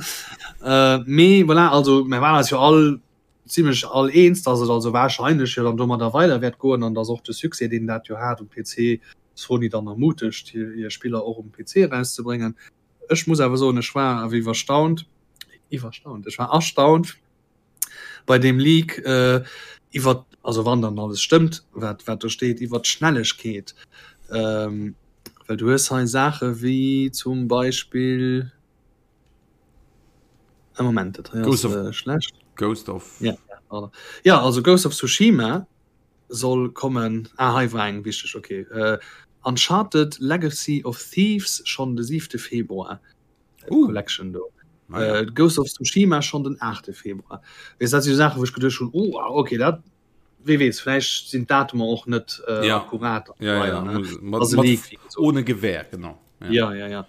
Äh, mee voilà, also mir waren eis jo all zimmlech all eens, dass et also wahrscheinlech jo dann domadder weider wäert goen an dass och de Succès, deen dat jo hat um PC, Sony dann ermutegt, hir, hir Spiller och um PC erauszebréngen. Ech muss awer soen, ech war awer iwwerstaunt, iwwerstaunt, ech war erstaunt, bei deem Leak äh, iwwer also wann dann alles stëmmt, wat wat do steet iwwer d'Schnellegkeet. Ähm, well du hues hei Saache wéi zum Beispill e Moment, dat hei ass Ghost of äh, schlecht. Ghost of Ja, ja, ja, also Ghost of Tsushima soll kommen. Ah, hei war eng wichteg, okay. Äh, Uncharted Legacy of Thieves schonn de 7. Februar. Uh. Collection do. Ah, ja. Äh, Ghost of Tsushima schon den 8. Februar. Wees dat si Sache, wou ech geduecht hunn, oh, ah, okay, dat wee weess, vläicht sinn d'Datumer och net äh, Ja. akkurat. Ja, ja, weider, ne? muss- mat, Ass e mat, Leak, wéi gesot. ohne Gewehr, genau. Ja, ja, ja. ja.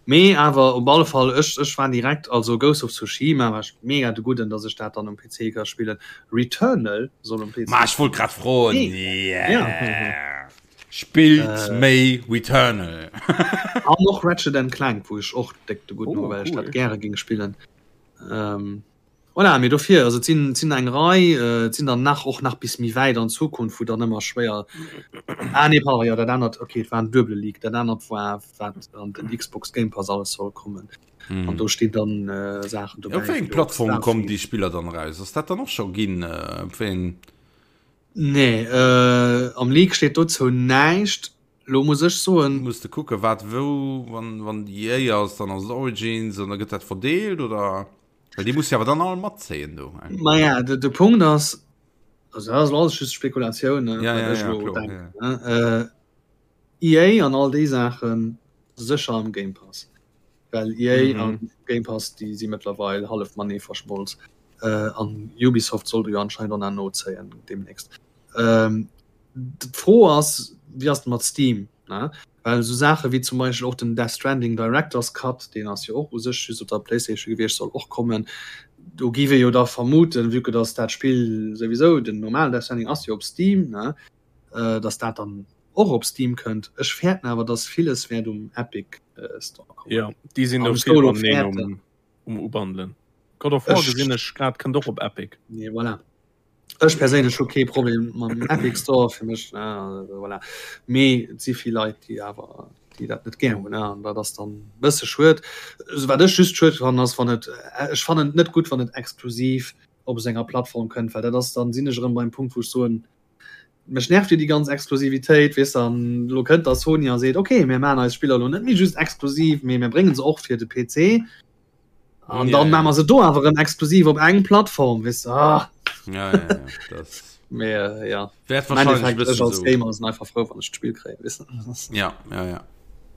Mee awer op alle Fall ech, ech war direkt also Ghost of Tsushima war ech mega de Gudden, dass ech dat dann um PC ka spillen. Returnal soll um PC. Ma ech wollt grad froen. Nee. Yeah. Spillt äh, méi Returnal. An och Ratchet and Clank, wou ech och déck de gudden Oh, oh, well ech cool. dat gäre ging spillen. Ähm, voilà, mee dofir also et sinn et sinn eng Rei, äh, et sinn dann nach och nach bis méi wäit an Zukunft, wou dann ëmmer schwéier Ah nee, pardon, jo dat anert okay, et war en duebele Leak, dat anert war wat an den Xbox Game Pass alles soll kommen. Hm. An do stinn dann äh, Saachen dobäi. Op wéi eng wéi och Plattform kommen Starfield. déi Spiller dann eraus? Ass dat dann och scho ginn? Äh, op wéi eng Nee, am Leak steet dozou näischt. Lo muss ech soen. Muss de kucken wat wou, wann wann EA ass, dann ass et Origins an da gëtt dat verdeelt oder? Well déi muss jo awer dann all matzéien do. Maja, de, de Punkt ass, also dat ass alles just Spekulatioun, ne, Ja, wat ja, ech ja, elo kloer, denken, ne. EA an all déi Saachen sécher am Game Pass. Well EA an Game Pass déi si mëttlerweil hallef matenee verschmolz. An Ubisoft sollt jo anscheinend och nach nozéien deemnächst. D'Fro ass, wéi ass et mat Steam, ne? Well esou Saache wéi zum Beispill och den Death Stranding Director's Cut, deen ass jo och u sech just op der PlayStation gewiescht, soll och kommen. Do géif ee jo da vermuten, vue que dass dat Spill souwisou, den normalen Death Stranding ass jo op Steam, ne, dass dat dann och op Steam kënnt. Ech fäerten awer, dass villes wäert um Epic Store kommen. Jo, déi sinn do vill am um Ubandelen. God of War gesinn ech grad kënnt och op Epic. Nee, voilà. Ech perséinlech hu kee Problem mam Epic Store fir mech voilà. Mee et si vill Leit, déi awer déi dat net gär hunn an dat ass dann bësse schued. Wat ech just schued fannen ass wann et ech fannen et net gutt wann et exklusiv op esou enger Plattform kënnt, well dat ass dann sinn ech erëm beim Punkt wou ech soen, mech nervt jo déi ganz Exklusivitéit weess de an elo kënnt da Sony a seet okay mir maachen eis Spiller elo net méi just exklusiv, mee mir brénge se och fir de PC. An ja, dann ja. machen se do awer en exklusiv op eng Plattform wis ah. ja, ja, ja. Das Mehr, äh, ja. Wahrscheinlich als so. Gamer sind einfach froh wann ich Spiel kréien wissen ja ja ja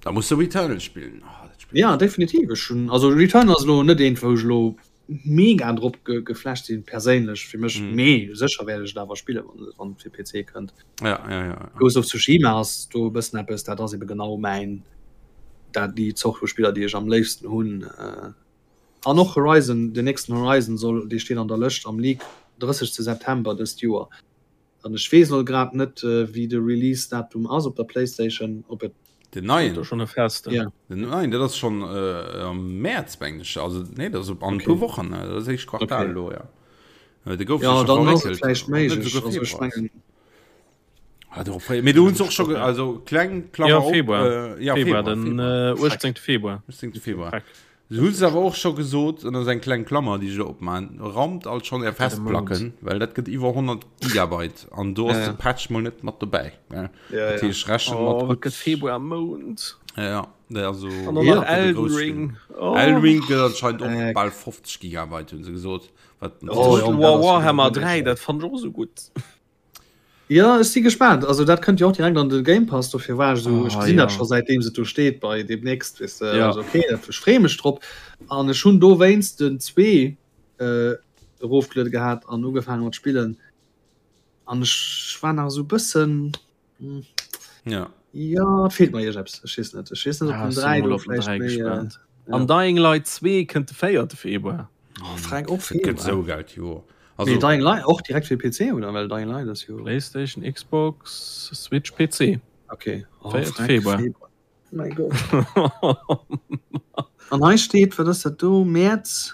da musst du Returnal spielen oh, Spiel ja definitiv schon also Returnal ass lo net een wou lo mega drop ge geflasht sinn perséinlech fir mech mm. mee sécher werde ich awer spiele wann wann fir PC kënnt ja, ja, ja. Ghost of Tsushima ass do e bëssen eppes dat ass eben genau mäin dat déi Zort vu Spiller déi ech am léifsten hunn äh, an och Horizon den nächsten Horizon soll dee steet an der Lëscht am Leak 30. September dëst Joer an ech weess elo grad net äh, wéi de Release Datum ass op der Playstation op et Den neien schon e festen ja. Den neien dat ass schon äh, am März mengen ech also nee dat ass op an okay. puer Wochen dat ass éischt Quartal okay. lo ja. Äh, de gouf ja, dann ass et vläicht méiglech also ech mengen Ah, darauf frei. Mee du hunn och schon also kleng Klammer ja, Februar. Op, äh, ja, Februar, Februar, den Februar. Äh, 18. Februar. 18. Februar. Freck. Du hunn awer och scho gesot an ass eng kleng Klammer déi ech opman rammt alt schon är Festplacken, well dat gëtt iwwer 100 Gigabyte an do ass ja, ja. de Patch mol net mat dobäi. Ja. Ja, ja. rechnen oh, mat gëtt Februar Mount. Ja, ja. Also, an ja, Elden Ring. Oh. Elden Ring gëtt anscheinend och äh, bal 50 Gigabyte hunn se gesot. Wat oh, ja, Warhammer 3 dat fand ech och sou gutt. Ja ech si gespaant. Also dat kënnt jo och direkt an de Game Pass, dofir war ech esou, ech gesinn dat scho säitdeem se do steet bei demnächst weess de. Ja. Also okay, dat ech freeë mech drop. An ech hunn dowéinst den 2 äh, erofgeluede gehat an ugefaange mat spillen. An ech war nach esou bëssen hm, Ja. Ja, et feelt mer iergeppes. Ech weess net. Ech weess net, ob Ah, den ech sinn 3 mol do op den vläicht 3 méi. Äh, gespaant. ja. An Dying Light 2 kënnt de 4. Februar. Oh, Frank, och Dat gëtt Februar. esou geld Joer. Mee Also Dying Light och direkt fir PC oder? Well Dying Light ass jo. PlayStation, Xbox, Switch, PC. Okay. Oh, 4. Frank, Februar. Februar. Mein Gott. An hei steet, wat ass dat do? Mäerz,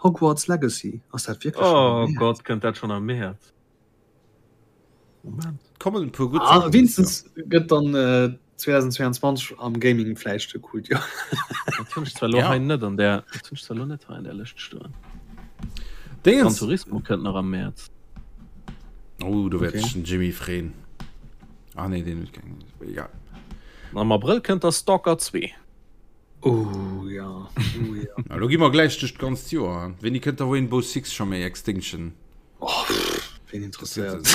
Hogwarts Legacy. Ass dat wierklech schonn am Oh Mäerz? Gott, kënnt dat schonn am Mäerz? Moment. kommen e puer gutt Ah, Saachen dëst Joer. wéinstens gëtt dann äh, 2022 am Gaming vläicht e coolt Joer. Dat hunn ech zwar elo Ja. hei net an der, dat hunn ech zwar elo net hei an der Lëscht stoen. Gran Dingens. Turismo kënnt nach am Mäerz. Oh, do wäert Okay. sech den Jimmy freeën. Ah nee, deen huet keng. Egal. Am Abrëll kënnt da Stalker 2. Oh ja, oh ja. Na, lo gi mer gläich duerch d'ganzt Joer. Wéini kënnt da Rainbow Six scho méi Extinction? Oh, pff, wen interesséiert.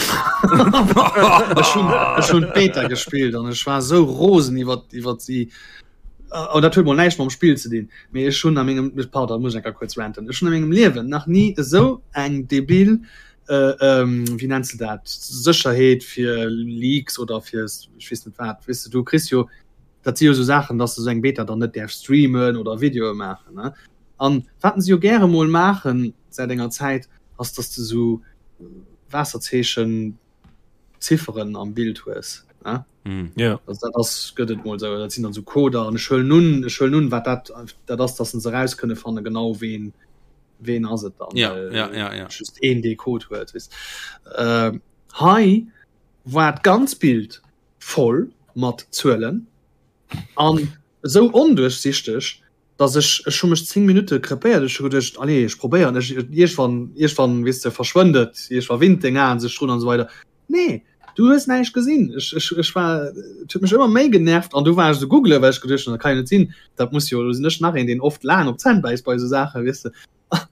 Ech hunn ech hunn d'Beta gespillt an ech war esou rosen iwwer iwwer si. An dat huet mol näischt mam Spill ze dinn. Mee ech hunn a mengem, pardon, muss ech eng Kéier kuerz ranten. Ech hunn a mengem Liewen nach ni esou eng debil äh, ähm, wéi nenns de dat, Sécherheet fir Leaks oder fir ech weess net wat. Weess de, du kriss jo, dat si jo esou Saachen, dass de esou eng Beta dann net däerfs streamen oder Videoe maachen, ne? An wat se jo gäre mol maachen säit enger Zäit, ass dass de esou Waasserzeechen Zifferen am Bild hues, ne? Mm. Ja. Also dat ass gëtt et mol esou, dat sinn dann esou Coder an ech huelen un, ech huelen un, wat dat dat ass, dass se eraus kënne fanne genau ween ween ass et dann, Ja, well ja, ja, ja. just een dee Code huet, weess. Ähm, hei war d'ganz Bild voll mat Zuelen an esou onduerchsichteg, dass ech, ech hu mech 10 Minutte krepéiert, ech hu geduecht, allez, ech probéieren, ech, iergwann, iergwann, weess de, verschwënnt et, iergwa winnt deng Aen sech drun an esou weider. Nee, du hues näischt gesinn. Ech, ech, ech war, et huet mech ëmmer méi genervt an du war ech esou googlen, well ech geduecht hunn, dat kann jo net sinn, dat muss jo, do sinn ech nach een, deen oft laang op d'Zänn bäisst bei esou Saachen, weess de,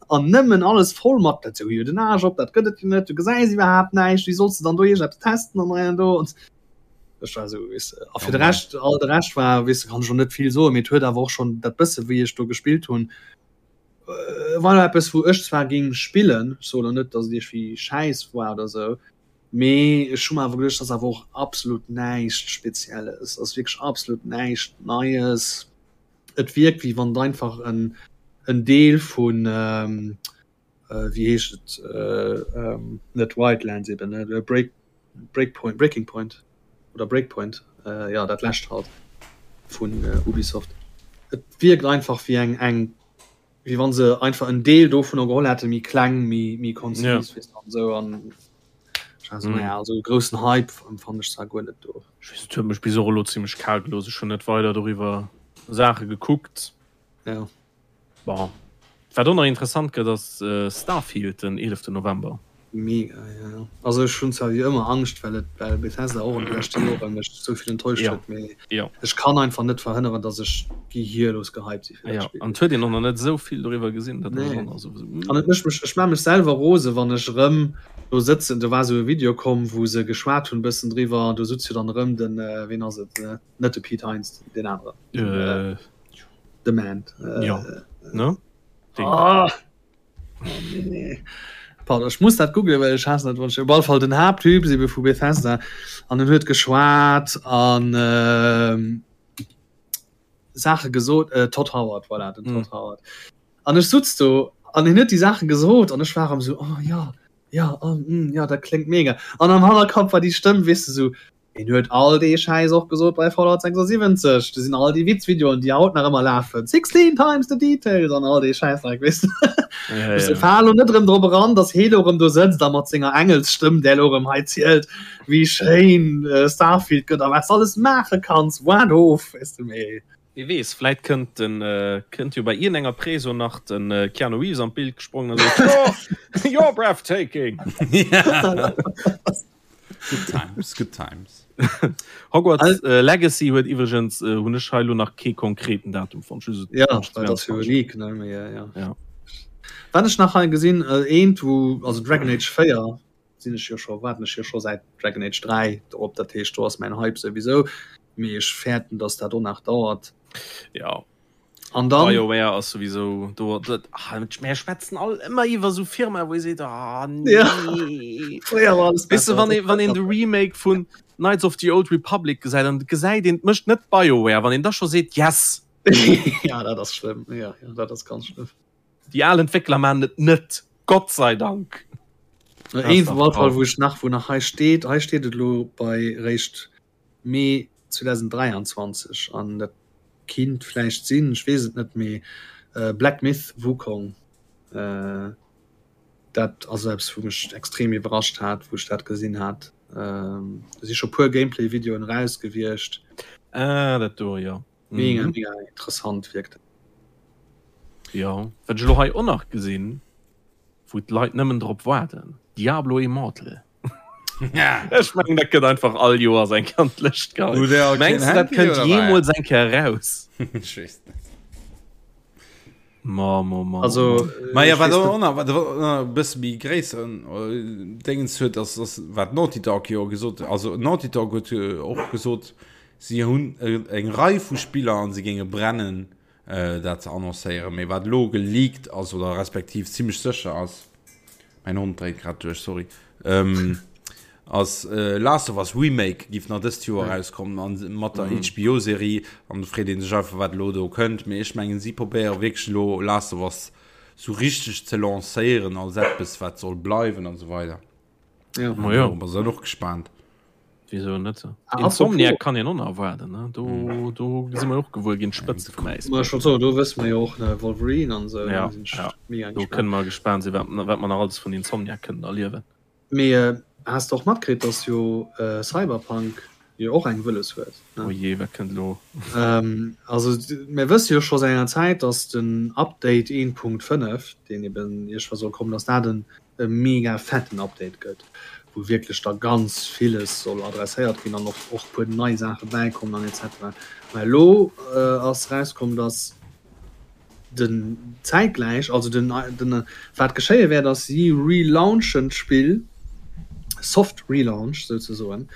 an nëmmen alles voll mat, dat sou jo den Aarsch op, dat gëtt et jo net, du gesäis iwwerhaapt näischt, wéi solls de dann do iergendeppes testen an hei an do. Ech war esou, weess de. A fir de Rescht, all de Rescht war, weess de, kann ech och net vill soen, mee et huet awer och schonn dat bësse wéi ech do gespillt hunn, war eppes wou ech zwar géing spillen, ech soen elo net, datt et iergendwéi schäiss war oder esou. Mee ech hu mer awer geduecht, ass awer och absolut näischt Spezielles, ass wierklech absolut näischt Neies. Et wierkt wéi wann et einfach en en Deel vun wéi heescht et net Wildlands eben ne Break Breakpoint Breaking Point oder Breakpoint jo dat lescht halt vun Ubisoft. Et wierkt einfach wéi eng eng wéi wann se einfach en Deel dovunner geholl hätten, méi kleng, méi méi konzis ja. weess an esou an also, mm. naja, also groussen Hype empfand ech zwar guer net do. Ech weess, et huet mech bis och elo zimmlech kal gelooss. Ech hunn net weider doriwwer Saache gekuckt. Ja. Bon. Wat och nach interessant gëtt ass äh, Starfield den 11. November. Mega, ja, ja. Also ech hunn zwar wéi ëmmer Angscht, well et well Bethesda och an de leschte Jore mech esou vill enttäuscht Ja, huet, mee ja. ech kann einfach net verhënneren, datt ech gehirlos gehypt si fir dat Ja, Spill. an et huet een och nach net esou vill doriwwer gesinn, dat ass Nee. och nach esou, esou, An et mm. mécht mech, ech maa mech selwer rose wann ech erëm do sëtzen, do war esou e Video komm, wou se geschwat hunn e bëssen driwwer, an do sutz jo dann erëm den, ween ass et, net de Pete Hines, deen aneren, den, Äh, de Man, ja, ne? Deen. Ah! Oh, nee. Pardon, ech muss dat googlen, well ech haassen dat, wann ech op alle Fall den Haapttyp ebe vu Bethesda an en huet geschwat an ähm, Saache gesot äh, Todd Howard voilà, den Todd mm. Howard. An ech sutz do an en huet déi Saache gesot an ech war am so oh, ja ja oh, mm, ja dat kléngt mega. An am Hannerkapp war déi Stëmm weess de sou Hien huet all dee Schäiss och gesot bei Fallout 76. Do sinn all déi Witzvideoen, déi haut nach ëmmer lafen. 16 times the details an all dee Schäissdreck, weess de. Ja, Ech ja. fale lo net erëm drop eran, dass hee lo erëm do sëtzt a mat senger Engelsstëmm, där lo erëm hei zielt, wéi schéin Starfield gëtt a wat s de alles maache kanns. Waart of, weess de, mee. Wie weess, vläit kënnt den, kënnt jo bei iergendenger Preso nach den Keanu Reeves an d'Bild gesprongen a seet, You're, you're breathtaking! Good times, good times. Hogwarts äh, Legacy huet iwwregens äh, hunn ech hei lo nach kee konkreten Datum fonnt. Just Ja, well dat ass jo e Leak, ne? Mee, ja, ja. Ja. Wat ech nach hei gesinn, äh, eent wou, also Dragon Age 4 sinn ech jo scho, waarden ech jo scho säit Dragon Age 3 drop, dat heescht do ass mäin Hype souwisou, mee ech fäerten, dass dat och nach dauert. Ja. An dann BioWare ass souwisou do dat ah, mir schwätzen all ëmmer iwwer sou Firma wou ee seet ah, nee. Ja. Fréier war alles Weess de, besser. wann ee wann een de Remake vun Knights of the Old Republic gesäit an gesäit een et mécht net BioWare, wann een da scho seet yes, Ja, dat ass schlëmm. Ja, ja, dat ass ganz schlëmm. déi al Entwéckler maan et net, Gott sei Dank. Een op alle Fall wou ech nach wou nach hei steet, hei steet et elo bei réischt Mee 2023 an dat kinnt vläicht sinn, ech weess et net, mee Black Myth Wukong, dat ass eppes wou mech extrem iwwerrascht hat, wou ech dat gesinn hat. Do si scho puer Gameplay-Videoen eraus gewiescht. Ah, dat do, jo. Mega, mega interessant wierkt dat. Jo, wat ech elo hei och nach gesinn, wou d'Leit nëmmen drop waarden, Diablo Immortal. Ech mengen dat gëtt einfach all Joers eng Kéier an d'Lëscht geheien. Mengs du dat kënnt jeemools eng Kéier eraus? Ech weess net. Ma, ma, ma, Also, Ma ja, ech wat weess och net. nach, wat och nach e bësse méi gréisseren Déngens huet, ass, ass wat Naughty Dog jo gesot, also Naughty Dog huet och gesot, si hunn eng Rei vu Spiller an se géinge brennen, dat ze annoncéieren. Mee wat elo geleakt ass oder respektiv zimmlech sécher ass, mäin Hond dréit grad duerch, sorry, ass Last of Us Remake giff nach dëst Joer erauskommen an mat der HBO-Serie. An do freet ee sech einfach, wat elo do kënnt. Mee ech mengen, si probéiere wierklech elo Last of Us sou richteg ze lancéieren als eppes, wat soll bleiwen an esou weider. Ja. Ma jo. Dorobber sinn och gespaant. Wieso net? Ah, Insomniac apropos- kann een och nach erwaarden, ne? Do, Mm. do si mer jo och gewuer ginn, d'Spëtzt vum Ma Äisbierg. schon so, do wësse mer jo och ne Wolverine an esou, Ja, do sinn ech ja. mega Do gespaant. kënne mer gespaant sinn, wat, wat mer nach alles vun Insomniac kënnen erliewen. Mee äh, has de och matkritt, dass jo äh, Cyberpunk jo och eng wëlles huet, ne? Oh jee, wat kënnt elo? Ähm, also mir wësse jo scho säit enger Zäit, dass den Update 1.5, deen eben iergendwa soll kommen, dass dat en e mega fetten Update gëtt, wou wierklech da ganz villes soll adresséiert ginn an och och puer nei Saache bäikommen an etc. Mä elo ass erauskomm, datt den zäitgläich, also den den wat geschéie wäert ass, si relaunchen d'Spill, soft relaunch souzesoen,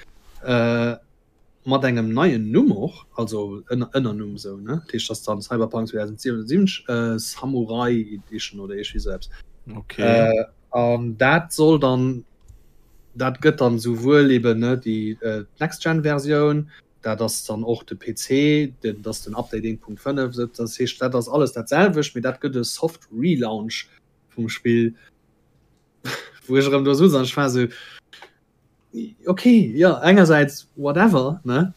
Mat engem neien Numm och, also Ënnernumm esou, ne? Dat heescht, dass dann Cyberpunk 2077 Samurai Edition oder iergendwéi esou eppes. Okay. An dat soll dann. dat gëtt dann souwuel eben ne déi äh, Next-Gen-Versioun, dat ass dann och de PC, den, dat ass den Update 1.5, sou, dat heescht dat ass alles dat selwecht, mee dat gëtt e Soft Relaunch vum Spill, wou ech erëm do sutz an ech war sou, okay, jo, engersäits whatever, ne,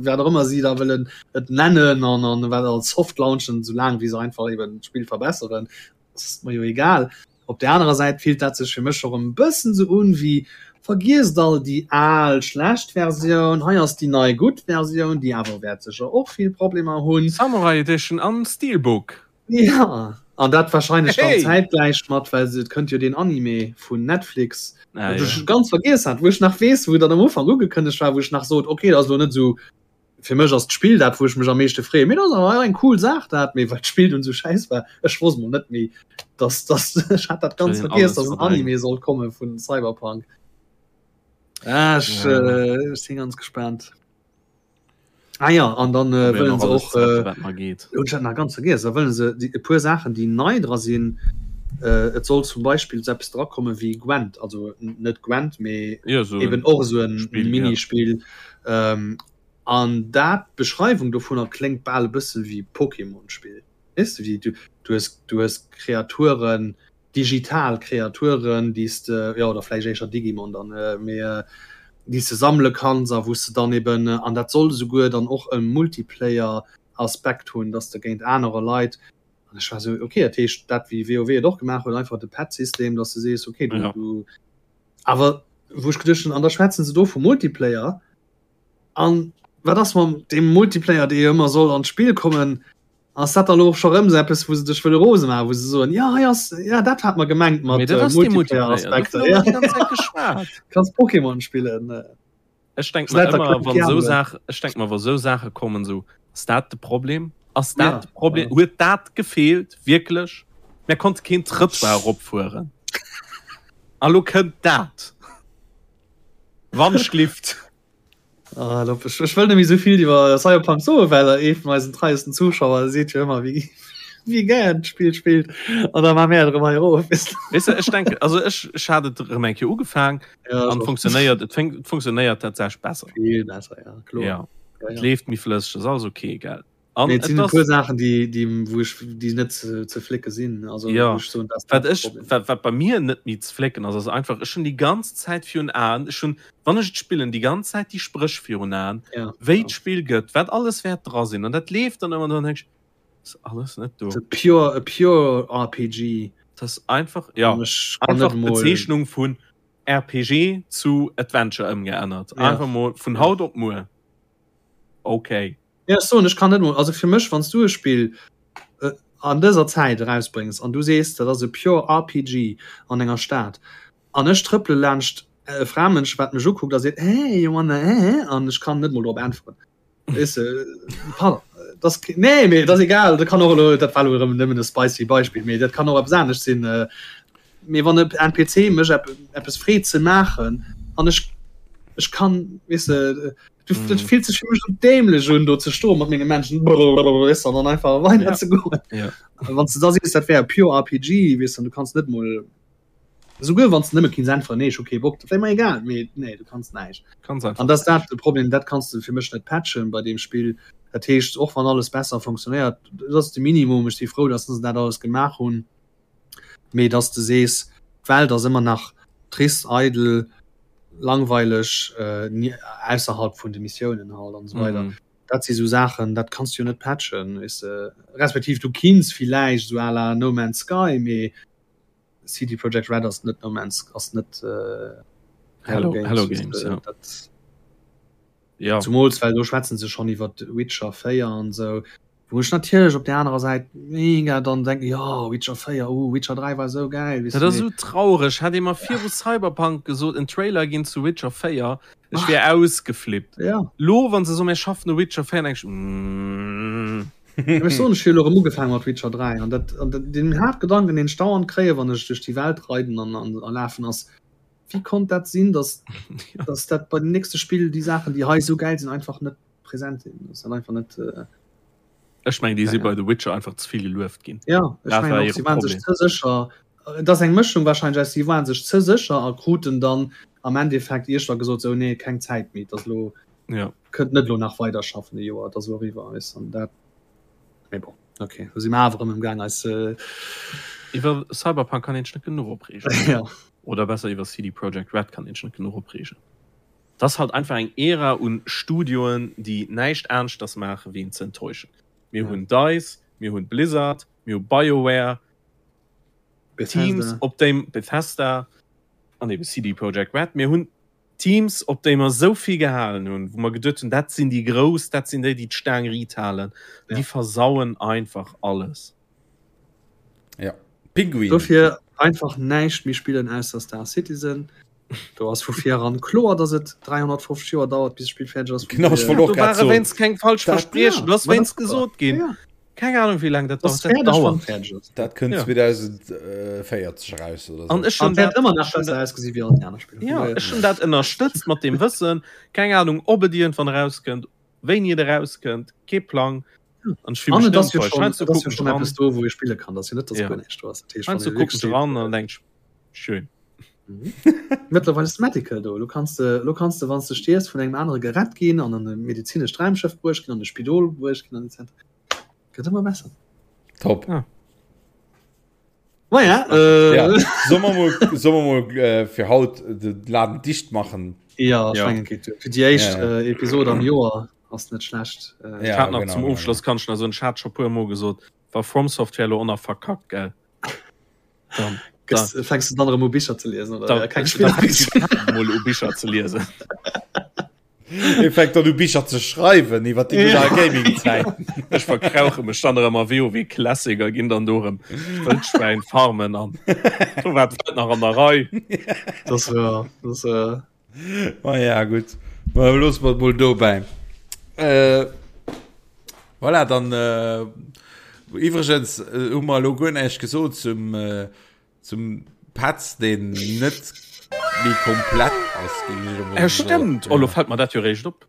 wat och ëmmer si da wëllen et nennen an an wat als Soft launchen, soulaang wéi se einfach eben d'Spill verbesseren, ass mer jo egal. Op der anerer Säit fillt dat sech fir mech och e bëssen sou un wéi, vergiesst all déi al schlecht Versioun, hei ass déi nei gutt Versioun, déi awer wäert sécher och vill Problemer hunn. Samurai Edition an Steelbook. Ja, an dat wahrscheinlech dann zäitgläich mat, well et kënnt jo deen Anime vun Netflix, ah, ja. ech ganz vergiess hat, wou ech nach weess, wou dann am Ufank ugekënnegt war, wou ech nach sot, okay, dat ass lo net sou, fir mech ass d'Spill dat, wou ech mech am meeschte freeën, mee dat ass awer eng cool Saach dat, mee well d'Spill dunn sou schäiss war, ech wosst mol net méi, dass, dass, ech hat dat ganz vergiess, dass en Anime sollt komme vun Cyberpunk. Ah, ech, ja. äh, ech sinn ganz gespaant. Ah ja, an dann äh, wëllen se och äh, ech hat nach ganz vergiess, da wëllen se déi e puer Saachen, déi nei dra sinn, äh, et soll zum Beispill sou eppes drakomme wéi Gwent, also net Gwent, mee ja, so eben och esou en Spiel, ja. Minispill. Ähm, an dat d'Beschreiwung dovunner kléngt bal e bësse wéi Pokémon-Spill. Weess de, wéi du, du hues, du hues Kreaturen, digital Kreaturen, déi s de, jo, oder vläicht éischer Digimon dann, mee déi s de sammele kanns a wou s de dann eben, an dat soll esouguer dann och e Multiplayer-Aspekt hunn, dass de géint anerer Leit, an ech war esou, okay, dat heescht dat wéi WoW et och gemaach huet, einfach de Pet-System, dass de sees, okay, du, du, awer wou ech geduecht hunn, an da schwätzen se do vu Multiplayer, an wat ass mam deem Multiplayer, dee jo ëmmer soll an d'Spill kommen? Ass dat da lo och scho rëm sou eppes, wou se dech wëlle rose maachen, wou se soen, jo hei ass, ja dat hat mer gemengt mat Mee dat ass dee Multiplayer, Multiplayer-Aspekter. dovun hu mer déi ganz Zäit geschwat. Kanns Pokémon spillen. Ech denk mer ëmmer, wann esou Saachen, ech denk mer, wa sou Saache kommen, sou, ass dat de Problem? Ass dat Ja, de Problem? ja. Huet dat gefeelt, wierklech? Mär konnte keen Trëttoir eropfueren. A lo kënnt dat. Wandschlift. Ah, ech, ech wëll net méi sou vill iwwer Cyberpunk soen, well ee vun eisen treiesten Zuschauer seet jo ëmmer, wéi, wéi gär d'Spill spillt. An da maache mär et erëm hei erof. Weess de, ech denken, also ech, ech hat et erëm eng Kéier ugefaang Ja, an ech och. funktionéiert, et fänkt, et funktionéiert tatsächlech besser. Vill besser, ja, kloer. Ja, Ja, et ja. leeft méi flësseg, ass alles ok, gell. An Nee, et et sinn e ass puer Saachen, déi, déi, wou ech, déi net ze, ze flécke sinn. Also, Ja, wou ech soen, dat ass wat dat ech, Problem. wat, wat bei mir net méi ze flécken ass, ass einfach, ech hunn déi ganz Zäit virun Aen, ech hunn, wann ech et spillen, déi ganz Zäit déi Spréch virun Aen, Ja, wéi ja. d'Spill gëtt, wat alles wäert dra sinn. An dat leeft dann ëmmer an dann denk ech, ass alles net do. Ass e pure, e pure RPG. Dat ass einfach, ja, An ech kann einfach net emol. d'Bezeechnung vun RPG zu Adventure ëmgeännert. Ja. Einfach mol vun Ja. haut op muer. Okay. Ja, ech soen, ech kann net mol, also fir mech, wann s du e Spill an dëser Zäit erausbréngs an du sees, dat ass e pure RPG an enger Stad an ech trëppele laanscht e Framënsch, wat mech ukuckt a seet, Hey, you wanna eh? an ech kann net mol drop äntweren. Weess de, pardon, dat ass, nee, mee dat ass egal, dat kann och elo, dat war elo erëm nëmmen e spicy Beispill, mee dat kann och eppes anescht sinn. Mee wann e NPC mech eppes freet ze maachen an ech, ech kann, weess de, Du, mm. Dat fillt sech fir mech so dämlech un, do ze stoen mat menge Menschen weess an dann einfach weiter ja. ze goen. Ja. Wann du da siehst, dat wär pure RPG, weess du kannst net mol souguer wann du nëmme kinns äntweren, nee, ech hu kee Bock, dat wär mer egal, mee nee, du kannst näischt. Kannst einfach An das dat de Problem, dat kannst du fir mech net patchen bei deem Spill. Dat heescht, och wann alles besser funktionéiert, dat ass de Minimum, ech si frou, dass se dat alles gemaach hunn, mee dass du sees, d'Welt ass ëmmer nach trist, eidel, langweileg äh, ausserhalb vun de Missiounen halt an so weiter. Mm. Dat si so Saachen, dat kannst du jo net patchen weißt du. respektiv du kinns villäicht so à la No Man's Sky, mee CD Projekt Red ass net No Man's ass net äh, Hello, Hello Games, Hello Games äh, ja. dat, ja. Zumools well do schwätzen se schon iwwer Witcher 4 an sou. Wou ech natierlech op der anerer Säit mega dann denken, jo Witcher 4, uh Witcher 3 war sou gäil, weess Dat de, ass mee esou traureg. Hätt ee mer viru Cyberpunk gesot, en Trailer ginn zu Witcher 4, ech wier ausgeflippt. Ja. Lo wann se soen, mir schaffen u Witcher 4, denk ech, mm. Mä ech soen, ech hu jo elo erëm ugefaange mat Witcher 3 an dat, an den Haaptgedanken, deen ech dauernd kréien, wann ech duerch déi Welt reiden an, an, a lafen, ass, wéi konnt dat sinn, dass, dass dat bei dem nächste Spill déi Saachen, déi hei esou gäil sinn, einfach net präsent sinn. Das dann einfach net äh, Ech meng déi si ja. bei The Witcher einfach ze vill gelueft ginn. Ja, ech Dat mengen war och, hire si waren sech Problem. ze sécher. Et ass eng Mëschung wahrscheinlech aus, si waren sech ze sécher a kruten dann am Endeffekt iergwann gesot, sou nee, keng Zäit méi, et ass elo, Ja. kënnt net elo nach weider schaffen e Joer, et ass elo eriwwer, weess an dat, mee bon, okay, do si mer awer erëm emgaang eis. Iwwer Cyberpunk kann een sech net genuch opreegen. Ja. Oder besser iwwer CD Projekt Red kann een sech net genuch opreegen. Et ass halt einfach eng Ära un Studioen, déi näischt aneschters maachen, wéi een ze enttäuschen. Mir hunn Dice, mir hunn Blizzard, mir hu BioWare, Teams op déi Bethesda an eben CD Projekt Red. Mir hunn Teams op déi mer esou vill gehalen hunn, wou mer geduet hunn, dat sinn déi Grouss, dat sinn déi, déi d'Staang riit halen. Ja. Déi versauen einfach alles. Ja. Pinguin. Dofir einfach näischt méi spillen ausser Star Citizen. Do ass vu vir eran kloer, dass et 350 Joer dauert, bis d'Spill fäerdeg ass. Genau, ech wollt och Do grad ware soen. wéinst keng falsch Dat- Verspriechen, ja, do ass ma dat wéinst ass gesot ginn. Ja. Keng Ahnung, wéi laang dat Ass dauert. Dat fäerdeg, wann dauert. et fäerdeg ass. Dat kënnt Ja. 2040 eraus oder An sou. ech An hunn wäert dat, ëmmer nach ech hunn besser dat, ausgesi wéi all déi aner Spiller. Vun ja, daher. ech hunn dat ënnerstëtzt mat deem Wëssen, keng Ahnung, ob et iergendwann erauskënnt, wéini et erauskënnt, kee Plang. An ech fille An mech et net ass jo enttäuscht. schonn, Heiansdo et ass jo kucken ech schonn dran, eppes do, wou ee spille kann. Dat ass jo net, dass ja, guer näischt do ass. Dat heescht, wann heiansdo ee kucken wierklech ech seet, dran an denk ech, schön. Mhm. Mëttlerweil ass Medical do. Lo kanns de, lo kanns de, wann s de stierfs, vun engem anere gerett ginn an an e medezinescht Raumschëff bruecht ginn, an e Spidol bruecht ginn an etc. Gëtt ëmmer besser. Top. Ah. Maja, äh, Ja. Soll mer mol, soll mer mol äh, fir haut de Laden dicht machen? ja, ech Ja. mengen, geet duer. Fir déi éischt Ja, ja. äh, Episode am Joer ass net schlecht. Äh, Ich Ja, hat nach genau, zum genau, Ofschloss kann ich nach so en Chat scho puer Mol gesot, war From Software lo och nach verkackt, gell? Dann, Gëss, fängst du dann erëm u Bicher ze liesen oder da, ja, keng da Spiller fänk ich mol u Bicher ze liesen. E fänkt dann u Bicher ze schreiwen iwwer déi gutt al Gaming-Zäit. Ech verkrauche mech dann erëm a WoW Classic a ginn dann do erëm Wëldschwäin farmen an do war d'Welt nach an der Rei. Das war, das war. Ma ja gutt, ma loosse mer et mol dobäi. Äh, voilà, dann äh, iwwregens äh, hu mer elo guer näischt gesot zum, äh, zum Petz, deen net méi komplett ass, géing ech elo mol Äh, soen. stimmt, oh, lo fällt mer dat jo réischt op.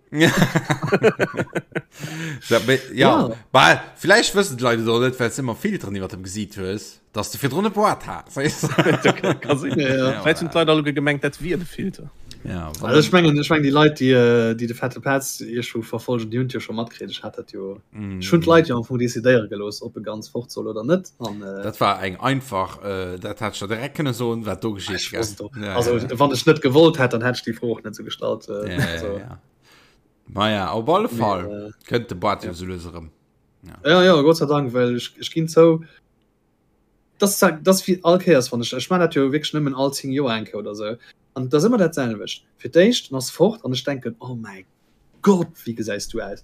Ja, mee, ja. Ja. Bah, vläicht wëssen d'Leit et och net, well s de ëmmer Filteren iwwer dem Gesiit hues. Dass de virdrun e Boart has. Ka sinn. Ja, ja. Vläicht hunn d'Leit alleguer gemengt, dat wier de Filter. Ja, Also ech mengen, ech mengen déi Leit, déi, äh, déi de fette Petz iergendwou verfolgen, déi hunn et jo scho matkritt. Ech hat dat jo, ech hunn d'Leit jo am Fong decidéiere gelooss, ob e ganz fort soll oder net. An, äh, Dat war eng einfach, äh, dat hätt ech der direkt kënne soen, wat do geschitt, ech gell? wosst och. Ja, Also ja, ja. wann ech net gewollt hätt, dann hätt ech déi Fro och net sou gestallt. Äh, Ja, ja, also, ja. Maja, op alle mee, Fall äh, kënnt de Boart jo ja. sou lues erëm. Ja, ja, Gott sei Dank, well ech, ech ginn zou, das, das wie all Kéiers wann ech ech man dat jo wierklech nëmmen all 10 Joer eng Kéier oder sou an dat ass ëmmer dat selwecht. Fir d'éischt en ass fort an ech denken oh mäi Gott wéi gesäis du aus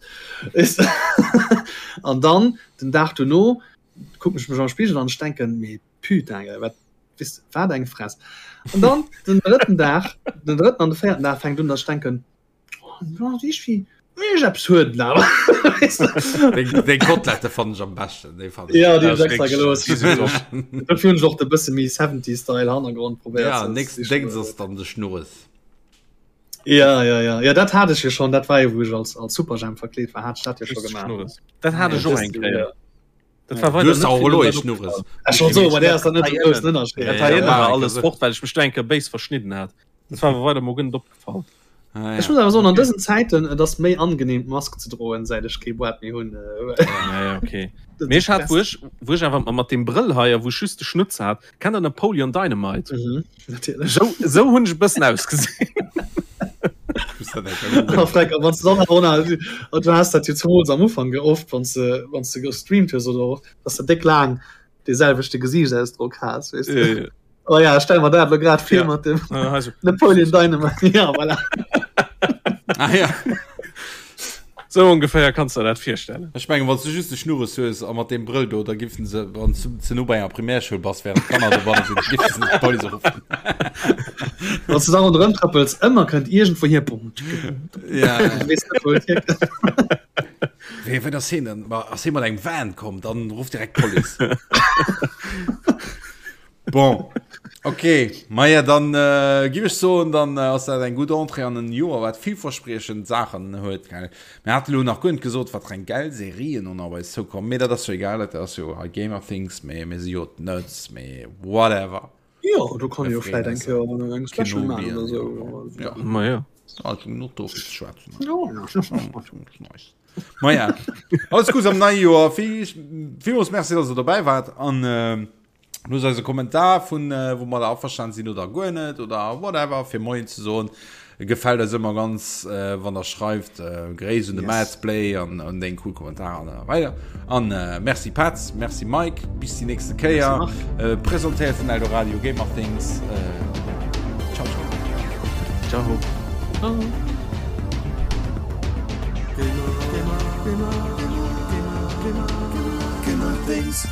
an dann den Dag dono kucken ech mech am Spigel an ech denken mee putain gell wat wis wat eng Fress an dann den drëtten Dag den drëtten an de véierten Dag fänkt un datt ech denken Deng Kotlette fannen ech am beschten. Déi fannen Ja, déi hunn ech extra gelooss. Dofir hunn ech och de bësse méi 70s Style Hannergrond probéiert. Ja, nächsten Déngs ass dann de Schnurres. Ja, ja, ja. Ja, dat hat ech jo schonn. Dat war jo, wou ech als, als Superjhemp verkleet war, hat ech dat jo scho gemaach. Schnurres. Dat hat ech och eng Kéier. Dat war Du weider hues net auch vill elo ee dat Schnurres. opgefall. Ech wollt soen, bei där ass dann net esou groussen Ënnerscheed. Dat war Ja, ëmmer ja, alles fort, well ech mech do eng Kéier béis verschnidden hat. Dat war awer weider mol guer net opgefall. Ah, Ech ja. muss awer soen, an dësen Zäiten, et ass méi angenehm d'Mask ze droen, säit ech kee Boart méi hunn. Ja, ja, okay. Dat Mee ass ech hat, wou best. ech, wou ech awer mat deem Brëll hei a wou ech just de Schnutz hat, kennt der Napoleon Dynamite? Mhm, natierlech. Sou, sou hunn ech e bëssen ausgesinn. Muss dat eng Kéier A googlen. Freck, a wann s du dann awer och nach, a du has dat jo zemools am Ufank oft, wann s de, wann s de gestreamt hues oder och, dass de déck laang dee selwechte Gesiichtsausdrock has, weess de. Ja, ja. Oh ja, stell mer dat lo grad vir Ja. mat dem Äh, also, Napoleon Dynamite. Ja, voilà. Ah, ja. sou ongeféier kanns de der dat virstellen. Ech mengen, wann s du just de Schnurres hues a mat deem Brëll do, da giffen se, wann s du ze no bei enger Primärschoul bass, während d'Kanner dobanne sinn, giffen se d'Police ruffen. Wann s du da ronderëm trëppels, ëmmer kënnt iergendwou hier bum, tschicke, bum, bum. Ja, ja. Du weess net, wou et hierkënnt. Wéi, wéi ass hien denn? Ma ass hie mat engem Van komm, dann ruff direkt d'Police. Bon. Okay, Maja dann äh, giff ech soen, dann äh, ass dat eng gutt Entrée an en Joer, wat villverspriechend Saachen huet. Gell? Mir hate lo nach guer net gesot, wat fir eng gäil Serien och nach op eis zoukommen, mee dat ass jo egal, dat ass jo hei Gamer Things, mee mir si jo d'Nerds, mee whatever. Jo, do kann jo vläit eng Kéier eng Special maachen oder sou. Ja. Ma ja. Also genug do fir ze schwätzen. Ja. Maja, alles Gutes am neie Joer. Villmools Merci, dass der dobäi waart an äh, Loosst eis e Kommentar vun äh, wou mer da averstan sinn oder guer net oder whatever fir Moien ze soen. Gefält eis ëmmer ganz äh, wann der schreift äh, Gréiss un de yes. Madsplay an an deng cool Kommentar an äh, weider. An äh, merci Patz, merci Mike, bis die nächste Kéier. Äh, presentéiert vun Eldoradio Gamer Things. Äh, ciao ciao. Ciao. Ciao. Gamer, Gamer, Gamer, Gamer, Gamer, Gamer, Gamer Things.